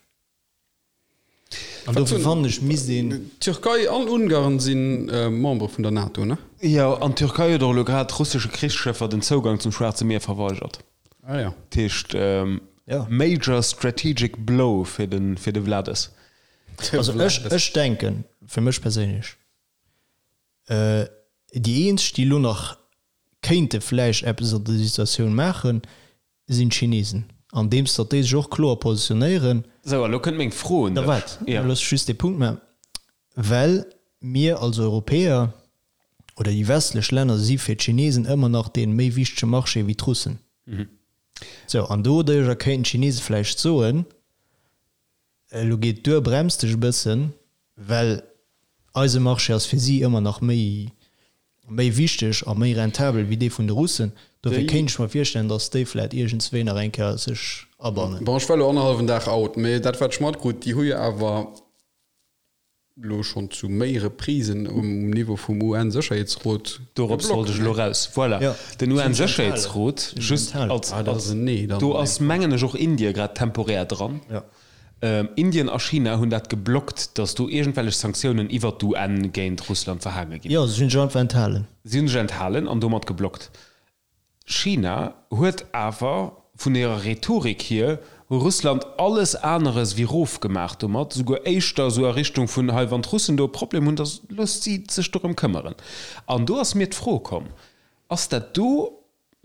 An dofir fannen ech, misst een. D'Türkei an Ungarn si Membere vun der NATO, ne? Jo, an d'Türkei huet och elo grad russesche Krichsschëffer den Zougang zum Schwaarze Mier verweigert. Ah jo. Dat heescht, major strategic blow fir de fir de Wlades. Also ech, ech denken, fir mech perséinlech, déi eenzeg, déi elo nach kéinte vläicht eppes an der Situatioun maachen, sinn d'Chinesen, andeems datt déi sech och kloer positionéieren. Sou, a lo kënnt meng Fro un Da dech. waart, Ja. looss ech just dee Punkt maachen, well mir als Europäer oder déi westlech Länner si fir d'Chinesen ëmmer nach dee méi wichtege Marché wéi d'Russen. Sou, an doduerjer kéinten d'Chinese vläicht soen, Elo geet et duer, brems dech e bëssen, well eise Marché ass fir si ëmmer nach méi, méi wichteg a méi rentabel wéi dee vun de Russen. Dofir kéint ech mer virstellen, datt déi vläit iergendswéi nach eng Kéier sech abannen. Bon, ech war elo annerhallwen Dag out, mee dat wat ech matkrut, déi hu jo awer elo schonn zu méi Reprisen um Niveau vum UN-Sécherheetsrot Dorops wollt ech elo raus. Voilà, den UN-Sécherheetsrot, just als, als, do ass mengen ech och Indien grad temporär dran. Indien a China hunn dat geblockt, datt do iergendwellech Sanktiounen iwwert d'UN géint Russland verhaange ginn. Jo, si hunn sech einfach enthalen. Si hunn sech enthalen an domat geblockt. China huet awer vun hirer Rhetorik hier Russland alles aneres wéi rof gemaach domat, souguer éischter esou a Richtung vun, hei wann d'Russen do e Problem hunn, da loosst si sech dorëm këmmeren. An do ass mir d'Fro komm, ass dat do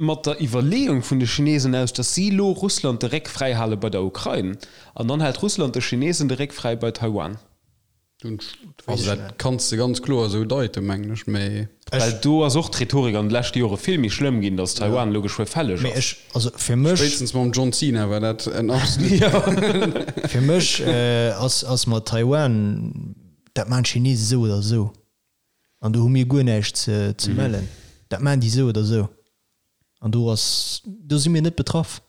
mat der Iwwerleeung vun de Chinesen aus, datt si elo Russland de Réck fräi hale bei der Ukrain an dann hält Russland de Chinesen de Réck fräi bei Taiwan? Also dat kanns de ganz kloer esou deiten, mengen ech, mee. Well do ass och d'Rhetorik an de leschte Jore vill méi schlëmm ginn, datt Taiwan elo geschwë fälleg Mee ass. ech, also fir mech. Spéitstens mam John Cena war dat en absolut. Fir mech ass, ass mat Taiwan, dat maachen d'Chinesen esou oder esou. An do hu mir guer näischt ze, ze mellen. Dat maachen déi esou oder esou. An do ass, do si mir net betraff.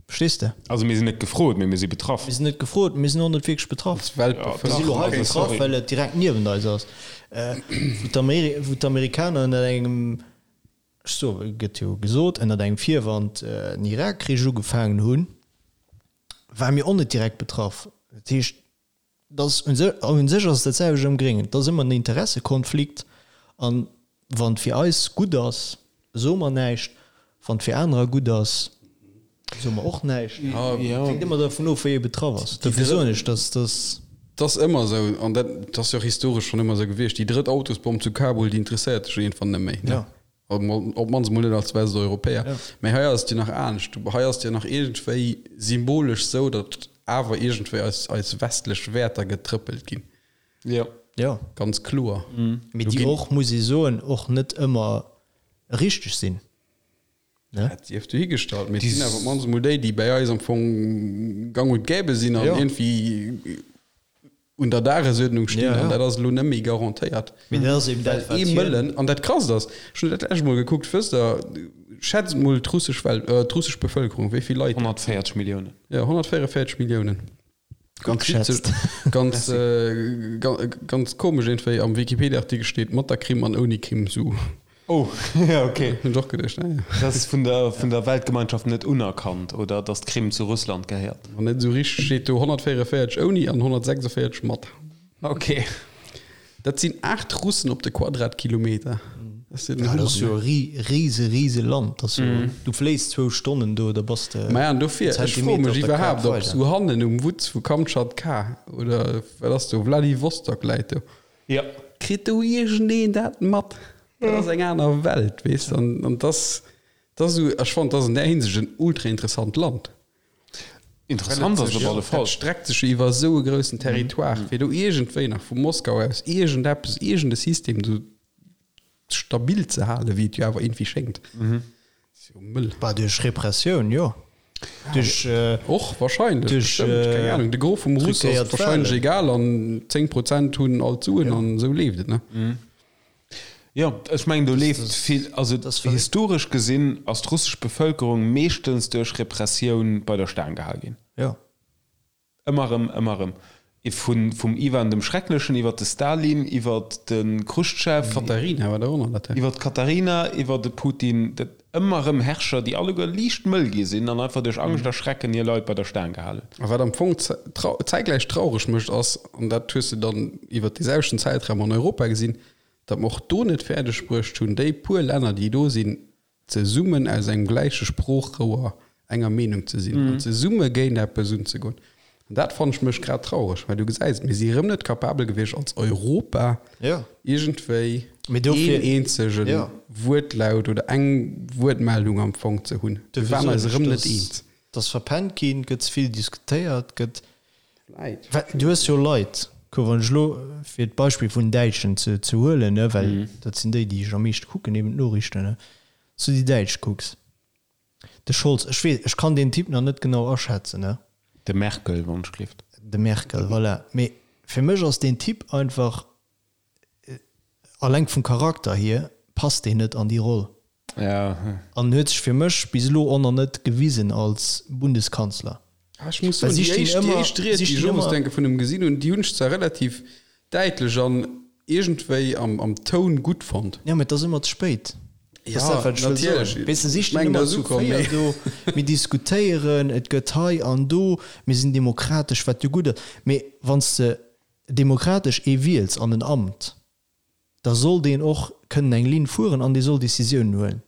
Verstees de? Also mir sinn net gefrot, mee mir si betraff. Mir sinn net gefrot, mir sinn och net wierklech betraff. Als Weltbevëlkerung. Mir si lo hei betraff, well et direkt niewent eis ass. Wou d'Amerikaner ënner engem, ech soe, gëtt jo gesot, ënner engem Virwand den Irakkrich ugefaangen hunn, ware mir och net direkt betraff. Dat heescht, Dass un sech ass et dat selwecht am Gréngen. Et ass ëmmer en Interessekonflikt. An wann et fir eis gutt ass, soe mer näischt. Wann et fir anerer gutt ass, soe mer och näischt. Et hänkt ëmmer dervun of, wéi ee betraff ass. Dofir soen ech, dass dass. Et ass ëmmer esou, an dat ass jo och historesch schonn ëmmer esou gewiescht, déi drëtt Autosbomm zu Kabul, déi interesséiert dech iergendwann net méi. Op d'mannst emol net als Westeuropäer. Mä hei ass et jo nach anescht. Hei ass et jo nach iergendwéi symbolesch esou, datt awer iergendwéi eis, eis westlech Wäerter getrëppelt ginn. Jo. Jo. Ganz kloer. Mee déi och, muss ee soen, och net ëmmer richteg sinn, ne? Dat sief dohigestallt. Mee et sinn awer op d'mannst emol déi, déi bäi eis am Fong gang und gäbe sinn an iergendwéi un der Dagesuerdnung stinn an dat ass elo net méi garantéiert. Mee dat ass eben dat, wat hien. Ee Mëllen, an dat Krasst ass, ech hunn dat lescht Mol gekuckt, wësst Der, schätzt mol d'russesch Welt, d'russesch Bevëlkerung, wéi vill Leit. 140 Milliounen. Jo, 144 Milliounen. Ganz geschätzt. Ganz, ganz komesch iergendwéi, am Wikipedia-Artikel steet mat der Krim an ouni Krim, sou. Oh, ja, okay. Hunn ech och geduecht, naja. Dat ass vun der, vun der Weltgemeinschaft net unerkannt, oder datt d'Krim zu Russland gehéiert? Wann net esou richteg, steet do 144 ouni an 146 mat. Okay. Dat sinn 8 Russen op de Quadratkilometer. Dat ass jo den Hummer, ne? E rise, rise Land. Dat ass jo, du fléis zwou Stonnen do, da bass de Maja, an dofir, ech froe Zentimeter mech op der Kaart iwwerhaapt, ob weider. sou hannen um Wutz vu Kamtschatka oder wat ass do, Wladiwostok läit do. Jo. Kritt do iergendeen dat mat? Dat ass eng aner Welt, weess de. An, an dass, dass esou, ech fannen, dat ass an där Hinsicht en ultra interessant Land. Interessant ass et op alle Fall. Dat streckt sech jo iwwer esou e groussen Territoire, fir do iergendwéi nach vu Moskau aus iergendeppes, iergende System do stabil ze halen, wéi et jo awer iergendwéi schéngt. Ass jo mëll. Bah, duerch Repressioun, jo. Duerch. Och wahrscheinlech, Duerch, bestëmmt, keng Ahnung. De Gros vum Russ ass truquéiert wahrscheinlech Wahlen. egal an 10 Prozent hunn all d'Suen an esou leeft et, ne? Jo, ech mengen do leeft vill, also Das verréckt. historesch gesinn ass d'russesch Bevëlkerung meeschtens duerch Repressioun bei der Staang gehal ginn. Jo. Ëmmer erëm, ëmmer erëm. Vun, vum Iwan dem Schrecklechen iwwer de Stalin, iwwer de Chruschtschow. D'Katharina war der och nach dat. Iwwer d'Katharina, iwwer de Putin. Dat ëmmer erëm Herrscher, déi alleguer liicht mëll gi sinn an einfach duerch Angscht a Schrecken hir Leit bei der Staang gehal hunn. A wat am Fong zäitgläich traureg mécht ass, an dat hues de dann iwwer dee selwechten Zäitraum an Europa gesinn, datt mer och do net fäerdeg bruecht hunn, déi puer Länner, déi do sinn, zesummen aus engem gläiche Sproochrouer enger Meenung ze sinn an zesumme géint eppes unzegoen. An dat fannen ech mécht grad traureg, well du gesäis, mir si erëm net capabel gewiescht als Europa iergendwéi een eenzege Wuertlaut oder eng Wuertmeldung am Fong ze hunn. Mir waren eis erëm net eens. Et ass verpennt ginn, gëtt ze vill diskutéiert, gëtt Well du hues jo Leit, kuck, wann ech elo, fir d'Beispill vun den Däitschen ze ze huelen, ne, well dat sinn déi, déi ech am meeschte kucken, eben d'Noriichten, ne, s du déi Däitsch kucks, de Scholz, ech weess, ech kann deen Typ nach net genau aschätzen, ne. De Merkel, wann ech gleeft. De Merkel, voilà. Mee fir mech ass deen Typ einfach, alleng vum Charakter hier, passt deen net an déi Roll. Ja. An huet sech fir mech bis elo och nach net gewisen als Bundeskanzler. Ah, ech muss soen, déi éischt, déi éischt Ried, déi ech owes denke vun em gesinn hunn, déi hunn ech zwar relativ däitlech an iergendwéi am, am Toun gutt fonnt. Ja, mee et ass ëmmer ze spéit. Ja, natierlech. Weess de, si stinn ëmmer zu 4 do, mir diskutéieren, et gëtt hei an do, mir sinn demokratesch, wat jo gutt ass. Mee wann s de demokratesch ee wiels an en Amt, da soll deen och kënnen eng Linn fueren an dee soll Décisiounen huelen.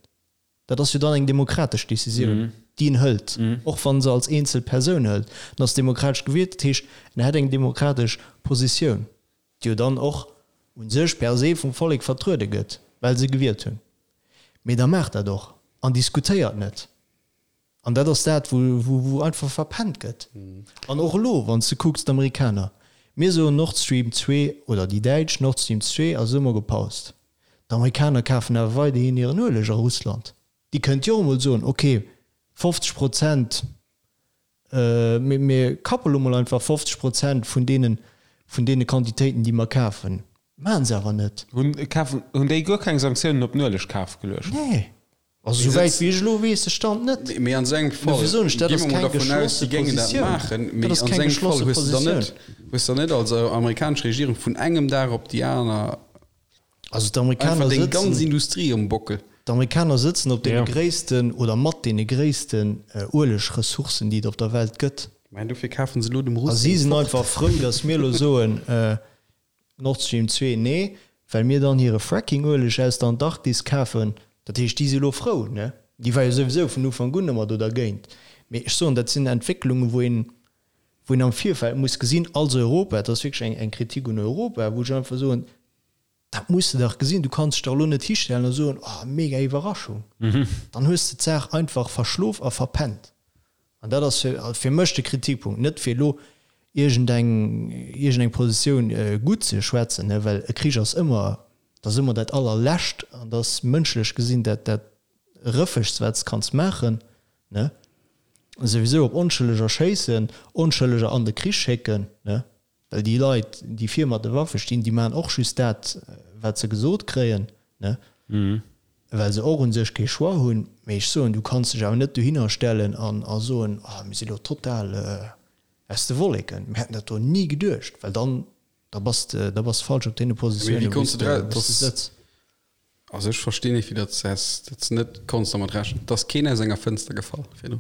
Dat ass jo dann eng demokratesch Décisioun, déi en hëlt, och wa se als eenzel Persoun hëlt. En ass demokratesch gewielt, dat heescht, en hätt eng demokratesch Positioun, déi jo dann och u sech per se vum Vollek vertruede gëtt, well se gewielt hunn. Mee da maacht dat och an diskutéiert net. An dat ass dat, wou, wou, wou einfach verpennt gëtt. An och elo, wann s de kucks, d'Amerikaner. Mir soen Nord Stream 2, oder déi Däitsch, Nord Stream 2 ass ëmmer gepaust. D'Amerikaner kafen awer weiderhin hiren Ueleg a Russland. Déi kënnt jo och emol soen, ok, 50 Prozent, mir kappe lo mol einfach 50 Prozent vun deenen, vun deene Quantitéiten, déi mer kafen. Maachen se awer net. Hunn, kafen, hunn déi guer keng Sanktiounen op den Uelegkaf geluecht? Nee. Also esou wäit wéi ech elo weess, de Stand net. Mee an esou engem Fall, Dofir soen ech, dat gi ass mer mol keng dervun aus, geschlosse déi géingen dat Positioun. maachen, mee Dat ass an keng esou engem Fall geschlosse hues de dann Positioun. net, hues de dann net als amerikanesch Regierung vun engem Dag op déi aner Also d'Amerikaner einfach deng ganz sëtzen, Industrie um Bockel. d'Amerikaner sëtzen op deene Ja. gréissten oder mat deene gréissten Uelegressourcen, déi et op der Welt gëtt. Mä dofir kafen se elo dem A Russ si seng sinn fort. einfach frou, datt mir elo soen, Nord Stream 2, nee, well mir dann hire Fracking-Ueleg aus der Antarktis kafen. Dat heescht, déi si elo frou, ne? Déi war jo souwisou vun Ufank un ëmmer do dergéint. Mee ech soen, dat sinn Entwécklungen, wou een, wou een am Virfeld muss gesinn, als Europa, dat ass wierklech eng, eng Kritik un Europa, wou ech einfach soen, dat muss de dach gesinn, du kanns dech dach elo net histellen a soen, oh, mega Iwwerraschung. Dann hues de d'Saach einfach verschlof a verpennt. An dat ass fir mech de Kritikpunkt, net fir elo iergendeng iergendeng Positioun gutt ze schwätzen, well e Krich ass ëmmer, dat ass ëmmer dat Allerlescht an dat ass mënschlech gesinn dat dat Rëffegst, wat s de kanns maachen, ne? Souwisou op Onschëlleger schéissen, Onschëlleger an de Krich schécken, ne? Well déi Leit, déi vir mat de Waffe stinn, déi maachen och just dat, wat se gesot kréien, ne? Well se och u sech kee Choix hunn. Mee ech soen, du kanns dech awer net dohinner stellen an a soen, oh, mir si lo total aus de Wolleken, mir hätten dat do ni geduecht, well dann, da bass de, da bass de falsch op deene Mee wéi Positiounen, wou konns s de de, dra, wou s de dass, sëtz. Also ech verstinn net, wéi dat s dat s net konns dermat rechnen. Et ass keen aus enger Fënster gefall virdru.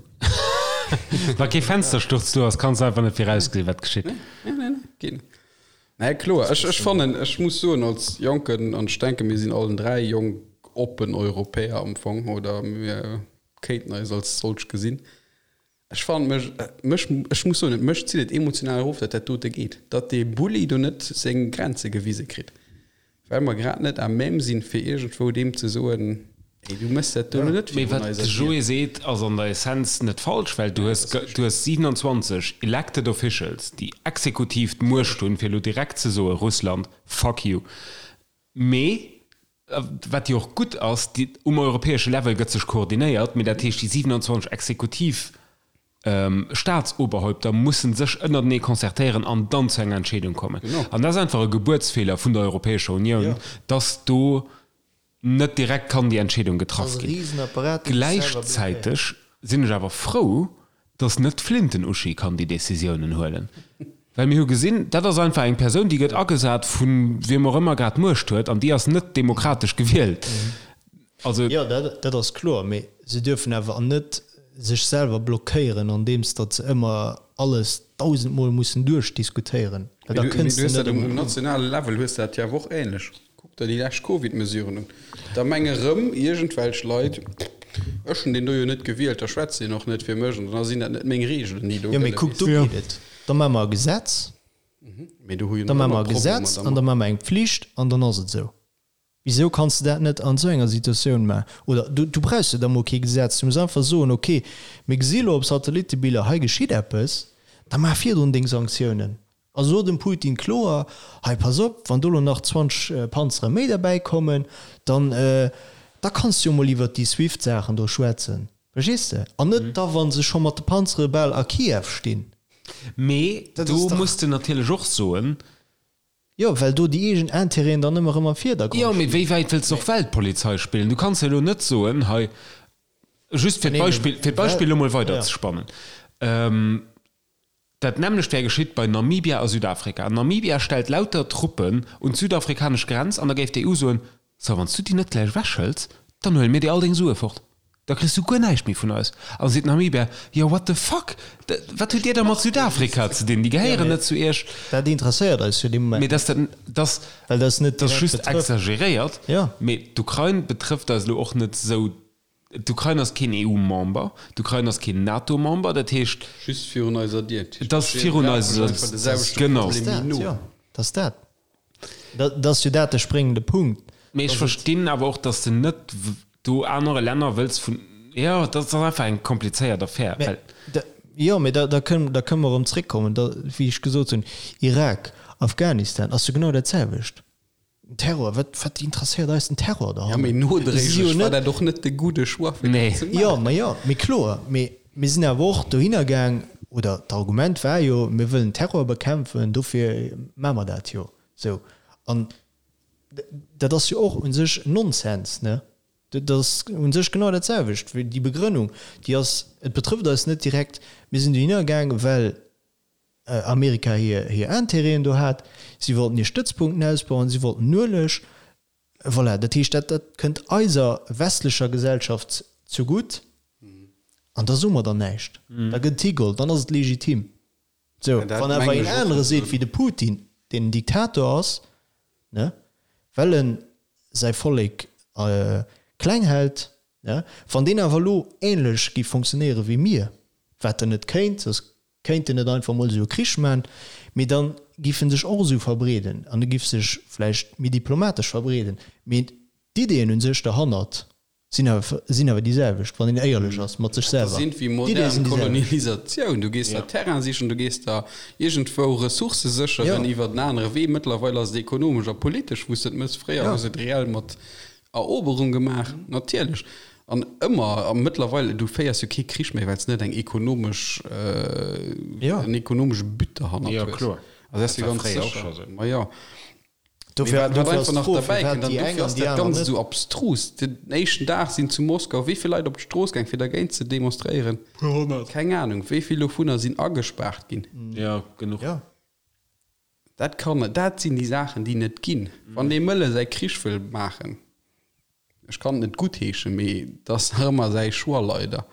Wa kee Fenstersturz do ass, kanns de einfach net virausgesinn, wat geschitt. Nee, nee, nee, geet net. Nee, kloer, ech, ech fannen, ech muss soen, als Jonken, an ech denke mir sinn allen 3 jonk, oppen Europäer am Fong, oder mir kéinten eis als solch gesinn, Ech fannen mech, mech, ech muss soen, mech zitt et emotional erof, datt dat dote geet, datt dee Bulli do net seng Grenze gewise kritt, well mer grad net à même sinn, fir iergendwou deem ze soen, Ey, du méchs dat do elo net Mee virun wat eiser de Dier. Joé seet, ass an der Essenz net falsch, well du hues, du hues 27 elected officials, déi exekutiv d'Muecht hunn, fir elo direkt ze soen, Russland, fuck you. Mee wat jo och gutt ass, déi, um europäesche Level gëtt sech koordinéiert, mee dat heescht, déi 27 exekutiv Staatsoberhäupter mussen sech ënnertenee concertéieren an dann zu enger Entscheedung kommen. An dat ass einfach e Gebuertsfeeler vun der Europäescher Unioun, dass do net direkt kann déi Entscheedung getraff ginn. Gläichzäiteg sinn ech awer frou, dass net d'Flinten-Uschi kann déi Décisiounen huelen, well mir hu gesinn, dat ass einfach eng Persoun, déi gëtt agesat vu wiem och ëmmer grad d'Muecht huet an déi ass net demokratesch gewielt. Also. Jo, dat ass kloer, mee se dierfen awer net sech selwer blockéieren, andeems datt se ëmmer alles dausendmol mussen duerchdiskutéieren, well da Mee du kënns de hues net dat um ëm. nationale Level hues de dat jo awer och ähnlech. Kuck der déi lescht Covid-Mesuren un. Da menge rëm iergendwelch Leit, ech hunn deen do jo net gewielt, da schwätzt deen och net fir mech an da sinn dat net meng Reegelen, déi do Jo, mee gëlle. kuck, do geet et. Da maache mer e Gesetz, Mee do hu jo da nach maache ëmmer mer e Problemer Gesetz an dermat. da maache mer eng Pflicht an dann ass et esou. Wisou kanns de dat net an esou enger Situatioun maachen? Oder du, du brauchs jo da mol kee Gesetz, du muss einfach soen, okay, mir gesi lo op Satellitebiller, hei geschitt eppes, da maach virdrun deng Sanktiounen. A so dem Putin kloer, hei pass op, wann do lo nach 20 Panzere méi derbäi kommen, dann, da kanns du jo mol iwwert déi Swift-Saachen do schwätzen. Verstees de? An net da wa se scho mat de Panzere bal a Kiew stinn. Mee Dat do ass dach. muss de natierlech och soen. Jo, well do déi eegen Intérêten dann ëmmer erëm am Virdergrond Jo, mee stinn. wéi wäit wëlls de och Weltpolizei spillen? Du kanns jo elo net soen, hei, just fir d'Beispill, fir d'Beispill elo mol weiderzespannen, Dat nämmlecht wär geschitt bei Namibia a Südafrika. Namibia stellt lauter Truppen un d'südafrikanesch Grenz an da géif d'EU soen, So, wann s du déi net gläich ewechhëls, dann huele mir dir all deng Sue fort. Da kriss du guer näischt méi vun eis. An da seet Namibia, Jo, what the fuck, wat hutt dir da mat Südafrika ze dinn? Déi gehéieren net zu iech. Dat interesséiert eis jo dee Moment Mee dass dat, dass, well dat net dat ass direkt just betrëfft. exageréiert. Jo. Mee d'Ukrain betrëfft eis elo och net esou D'Ukrain ass keen EU-Member, d'Ukrain ass keen NATO-Member, dat heescht. Just virun eiser Dier. Et ass virun eiser Dier, genau. Jo, dat ass dat. Dat ass jo dat de spréngende Punkt. Mee ech verstinn awer och, datt s de net do anere Länner wëlls vun, jo, dat ass einfach eng komplizéiert Affär, well. Jo, mee da, da kënne, da kënne mer erëm zréckkommen, da, wéi ech gesot hunn, Irak. Afghanistan ass jo genau dat selwecht. Den Terror, wat, wat interesséiert eis den Terror Ja, mee nodréiglech war dat och net de gudde Choix, fir dat ze maachen. Jo, ma jo, mee kloer, mee mir sinn awer och dohinner gaang, oder d'Argument war jo, mir wëllen Terror bekämpfen, dofir maache mer dat jo esou. An dat ass jo och u sech Nonsens, ne? Dat ass u sech genau dat selwecht wéi déi Begrënnung, déi ass, et betrëfft eis net direkt, mir sinn dohinner gaang, well Amerika hir Intérêten do hat, si wollten hir Stëtzpunkten ausbauen, si wollten Ueleg, voilà. Dat heescht, dat dat kënnt eiser westlecher Gesellschaft zegutt an da soe mer dann näischt, da gëtt et higeholl, dann ass et legitim. Sou, wann awer een anere seet wéi de Putin, deen en Diktator ass, ne, well en säi Vollek kleng hält, ne, wann deen awer elo ähnlech géif fonctionnéiere wéi mir, wat en net kéint, soss kéint en net einfach mol esou e Krich man, mee da giff en sech och esou verbreeden an e giff sech vläicht méi diplomatesch verbreeden, mee d'Ideeën un sech derhannert sinn awer sinn awer déi selwecht, wann een éierlech ass mat sech Dat selwer. ass wéi D'Ideeë modern sinn déi selwecht. Kolonialisatioun. Du gees der Terrain sichen, du gees der iergendwou Ressourcë sécheren Jo. iwwer en anere Wee. Mëttlerweil ass et ekonomesch a politesch, wou s de et méchs. Fréier Jo. hues de et reell mat Eroberung gemaach, natierlech. An ëmmer, a mëttlerweil, du féiers jo kee Krich méi, well s net eng ekonomesch, Jo. en ekonomesche But derhannert Jo, hues. kloer. Also dat ass Dat jo war ganz fréier och sécher. scho sou. Ma jo. Dofir, Wat dofir einfach ass nach d'Fro, derbäi firwat kënnt, an déi eng dofir an ass déi dat aner Ganzt net. esou abstrus, Den éischten Dag sinn zu Moskau wéi vill Leit op d'Strooss gaang, fir dergéint ze demonstréieren? Puer 100. Keng Anung, wéi vill dovunner sinn agespaart ginn. Jo, genuch. Jo. Dat kann, dat sinn déi Saachen, déi net ginn. Wann dee Mëlle säi Krich wëll maachen, ech kann et net guttheeschen, mee et ass nach ëmmer säi Choix, leider.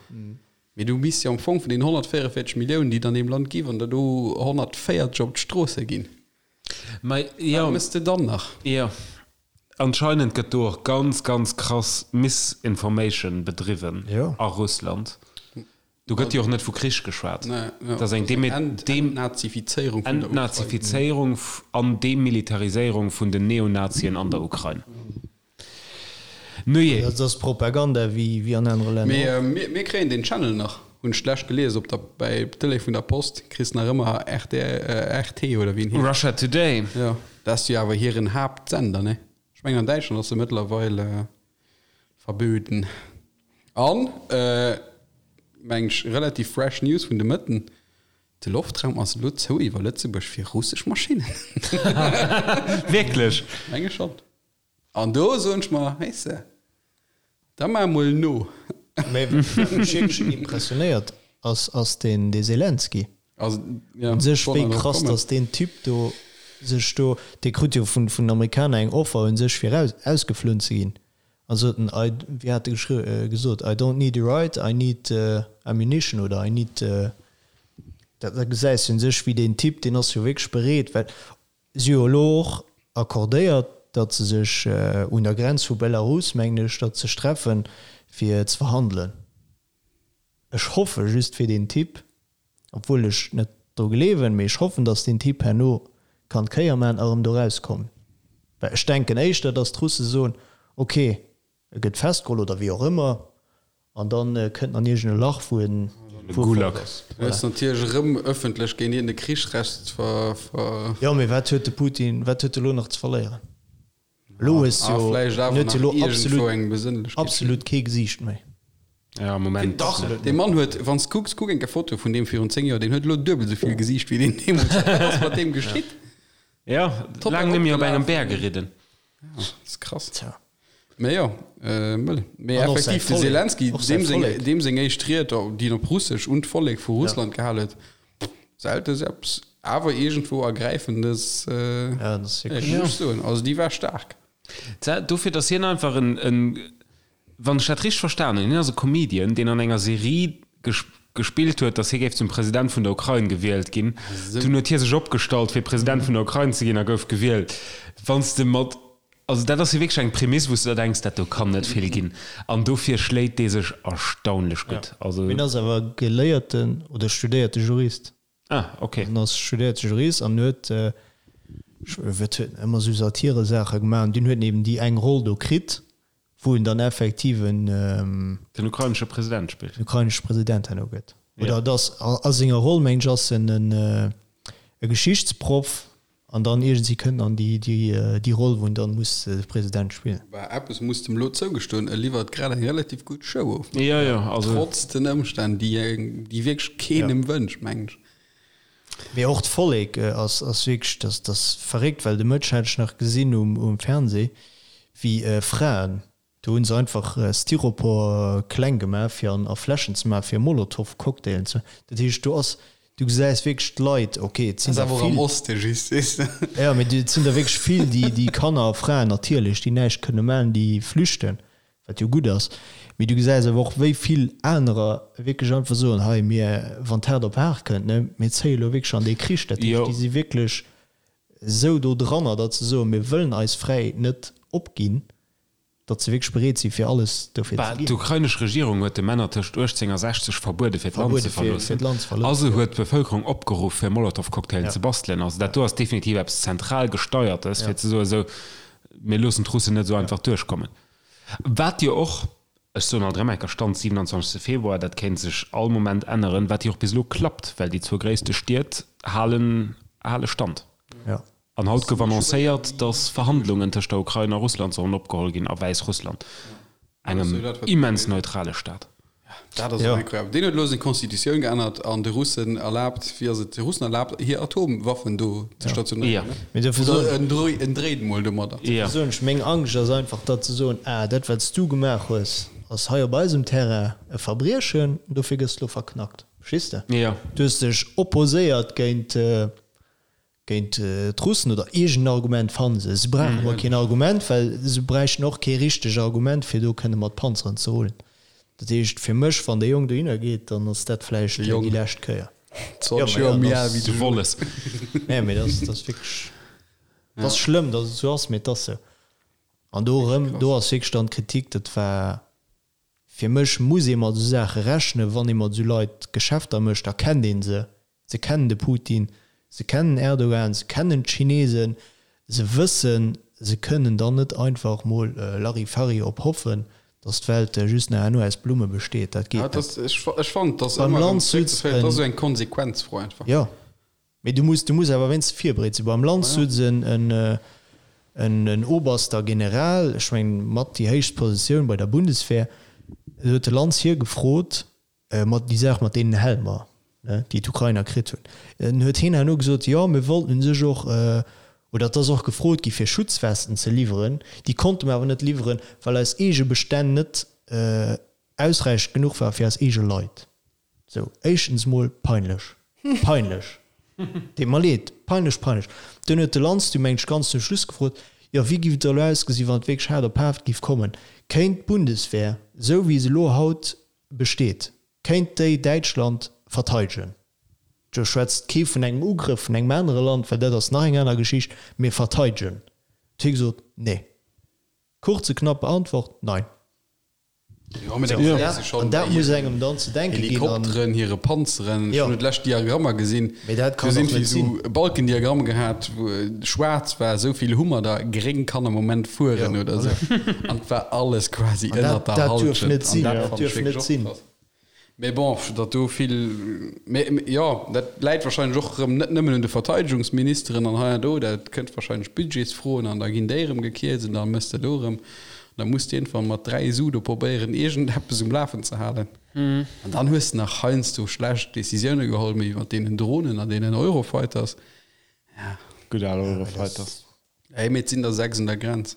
Mee du misst jo am Fong vun den 144 Milliounen, déi et an deem Land gi, wann der do 140 op d'Stroosse ginn, Mä jo. Wat mëss de dann nach? Jo. Anscheinend gëtt do och ganz, ganz krass Misinformation bedriwwen a Russland. Do gëtt jo och net vu Krich geschwat. Dat ass eng Entnazifizéierung vun der Ukrain. Entnazifizéierung an Demilitariséierung vun den Neonazien an der Ukrain. Nujee. Dat ass Propaganda wéi an anere Länner och. Mee mir kréien deen Channel nach, hunn ech d'lescht gelies op der, bäi Tëlee vun der Post, kriss nach ëmmer RT, RT oder wéi en heescht. Russia Today. Jo, dat ass jo awer hiren Haaptsender, ne? Ech mengen an Däitschland ass e mëttlerweil verböden. An, meng ech, relativ fresh News vun de Mëtten, de Loftraum ass elo zou iwwer Lëtzebuerg fir russesch Maschinnen. Wierklech? Menge schonn. An do soen ech mer, weess de, da mar emol no. Mä wat mech wierklech impressionéiert ass, ass deen dee Selenskyj. Also, ja, Un sech wollt wéi nach drop krass, kommen. datt deen Typ do sech do, dee krut jo vun vun den Amerikaner eng Offer un sech fir raus ausgeflunn ze ginn. An sot en, I, wéi hat e geschri gesot, I don't need a ride, I need ammunition oder I need, dat da gesäis de un sech wéi deen Typ, deen ass jo wierklech bereet, well Si hu elo och accordéiert, datt se sech un der Grenz vu Belarus, mengen ech, datt sech treffen, fir ze verhandelen. Ech hoffe just fir deen Typ, obwuel ech net dru gleewen, mee ech hoffen, datt deen Typ herno kann d'Kéier maachen a erëm do erauskommen. Well ech denken éischter, datt d'Russe soen, ok, E gëtt festgeholl oder wéi och ëmmer an dann kënnt en an iergend e Lach wou en wou e Gulag. fort ass. Du hues natierlech erëm ëffentlech géint iergend e Krichsrecht ver. Jo, mee wat huet de Putin, wat huet e lo nach ze verléieren? Elo hues A jo, vläicht en awer huet jo nach elo iergendwou absolut, eng Besënnlechkeet. absolut kee Gesiicht méi. Ja, am Moment. Dach, dee Mann huet, wann s kucks, kuck eng Kéier Fotoe vun deem virun 10 Joer, deen huet elo duebel esou vill Gesiicht wéi deen deemools hat. Wat ass mat deem geschitt? Ja, Total laang net méi op engem opgelaf. Bär geridden. Ja, ass krass. Tja. Mee jo, mëll. Mee An och säi effektiv, de Vollek. Selenskyj, Och säi deem seng, Vollek. deem seng éischt Ried, déi en op Russesch un d'Vollek vu Russland gehal huet, selte sou eppes awer iergendwou Ergräifendes, Ja, dat ass ja, wierklech. muss ech soen. Also déi war staark. Tja, dofir, datt hien einfach en, en, wann ech dat richteg verstan hunn, hien ass e Comedian, deen an enger Serie gespillt huet, datt hie géif zum President vun der Ukrain gewielt ginn. Dunn huet hie sech opgestallt, fir President vun der Ukrain ze ginn a gouf gewielt. Wann s de mat, also dat ass jo wierklech eng Prämiss, wou s de der denks, dat do kann net vill ginn. An dofir schléit dee sech erstaunlech gutt. Also. Hien ass awer geléierten oder studéierte Jurist. Ah, ok. En ass studéierte Jurist an huet, wat huet en, ëmmer esou Satiresaache gemaach. An dunn huet en eben déi eng Roll do kritt, wou en dann effektiv en. Den ukrainesche President spillt. Den ukrainesche President herno gëtt. Oder et ass a senger Roll, mengen ech, ass en e Geschichtsproff. An dann iergendwéi kënnt an déi, déi, déi Roll, wou en dann muss de President spillen. Bah, eppes muss dem elo zougestoen, e liwwert grad eng relativ gutt Show of. Jo, jo, also. Trotz den Ëmstänn, déi, déi wierklech keenem wënscht, mengen ech. Mee och d'Vollek ass, ass wierklech, dat, dat ass verréckt, well de Mëtteg hat ech nach gesinn um, um Fernseh, wéi Fraen Do hunn se einfach Styropor kleng gemaach fir an a Fläschen ze maachen, fir Molotow-Cocktailen ze. Dat heescht, do ass, du gesäis wierklech d'Leit, ok, et sinn der vill. Am Oste just, weess de. Jo, mee et sinn der wierklech vill, déi, déi Kanner a Fraen natierlech, déi näischt kënne maachen, déi flüchten, wat jo gutt ass. Mee du gesäis awer och, wéi vill anerer wierklech einfach soen, hei, mir, wann d'haart op haart kënnt, ne, mir zéie lo wierklech an dee Krich. Dat heescht, déi si wierklech esou do dranner, datt se soen, mir wëllen eis Fräiheet net opginn. Datt se wierklech bereet sinn, fir alles dofir ze ginn. D'ukrainesch Regierung huet de Männer tëscht 18 a 60 verbuede fir d'Land ze verloossen a se huet d'Bevëlkerung opgeruff fir Molotow-Cocktailen ze bastelen. Also dat do ass definitiv eppes zentral gesteiertes fir ze soen, esou mir loossen d'Russen net esou einfach duerchkommen. Wat jo och, ech soen alt erëm eng Kéier, Stand 27 Februar, dat kéint sech all Moment änneren, wat jo och bis elo klappt, well déi zwou gréisste Stied halen hale Stand. An haut gouf annoncéiert, datt Verhandlungen tëscht der Ukrain a Russland sollen opgeholl ginn a Wäissrussland, engem immens neutrale Staat. Dat ass incroyable. Deen huet elo seng Constitutioun geännert an de Russen erlaabt, wéi ass et, de Russen erlaabt, hir Atomwaffen do ze stationéieren. Oder en dréit emol domadder. Dofir soen ech, meng Angscht ass einfach, datt se soen, ah, dat wat s du gemaach hues, ass hei op eisem Terrain e Verbriechen, dofir gëss de elo verknackt. Verstees de? Du hues dech opposéiert géint Géint d'Russen oder iergend en Argument fanne se. Se brauchen emol keen Argument, well se bräichten och kee richteg Argument, fir do kënne mat Panzeren ze rullen. Dat heescht fir mech, wann dee Jong dohinner geet, dann ass dat vläicht déi lescht Kéier. 20 Joer méi al wéi de Wolles. Nee, mee dat ass wierklech, dat ass schlëmm, datt et esou ass, mee et ass esou. An do erëm, do ass wierklech dann d'Kritik, dat war Fir mech muss ee mat esou Saache rechnen, wann ee mat esou Leit Geschäfter mécht, da kennt ee se. Se kennen de Putin, se kennen Erdogan, se kennen d'Chinesen, se wëssen, se kënnen dann net einfach mol Larifari op hoffen, datt d'Welt just nach herno aus Blumme besteet. Dat geet net. Ech fannen, et ass Beim ëmmer erëm Land sutz zréckzeféieren, et ass esou eng Konsequenzfro einfach. Jo. Mee du muss, du muss awer wéinstens virbereet sinn. Beim Lanz sutz en, en, en oberster General, ech mengen mat déi héichst Positioun bei der Bundeswehr, do huet de Lanz hie gefrot, mat déi Saach mat deenen Helmer, ne, déi d'Ukrainer kritt hunn. En huet hien herno gesot, jo mir wollten u sech och, oder et ass och gefrot gi fir Schutzwesten ze liwweren, déi konnte mer awer net liwweren, well eis eege Bestänn net ausräichend genuch war fir eis eege Leit. Sou, éischtens mol peinlech. Peinlech! Deet mer leed. Peinlech, peinlech. Dunn huet de Lanz du mengt ech ganz zum Schluss gefrot, jo wéi giff et da elo ausgesinn, wann et wierklech haart op haart giff kommen? Kéint d'Bundeswehr, sou wéi se elo haut besteet, kéint déi Däitschland verteidegen? Do schwätzt kee vun engem Ugrëff vun engem anere Land, well dat ass nach eng aner Geschicht, mee verteidegen. Huet hie gesot, nee. Kurze, knappe Antwort, Nein. Jo, mee da gesäis de schonn An dat bei muss hiren engem dann ze denke ginn. An Helikopteren, hire Panzeren. Ech Jo. hunn et lescht Diagrammer gesinn. Mee dat Do kann sinn och net esou sinn. Balkendiagramm gehat, wou schwaarz war, esou vill hu mer der, gréng kann am Moment fueren Jo, oder esou. voilà. An et war alles quasi An dat, ënnert der dat duerf Hallschent. net An sinn. dat Dat fannt ech duerf wierklech net och sinn. krass. Mee bon, datt do vill, mee jo, dat läit wahrscheinlech och erëm net nëmmen un de Verteidegungsministeren an hei an do, dat kënnt wahrscheinlech Budgetsfroen an da ginn déi erëm gekierzt an da mëss de do erëm, an da muss de iergendwann mat 3 Su do probéieren iergendeppes um Lafen ze halen. An dann hues de nach heiansdo schlecht Decisioune geholl, méi mat deenen Dronen an deenen Eurofighters. Ja. Gutt al Eurofighters. Ey, mee et sinn der 6 un der Grenz.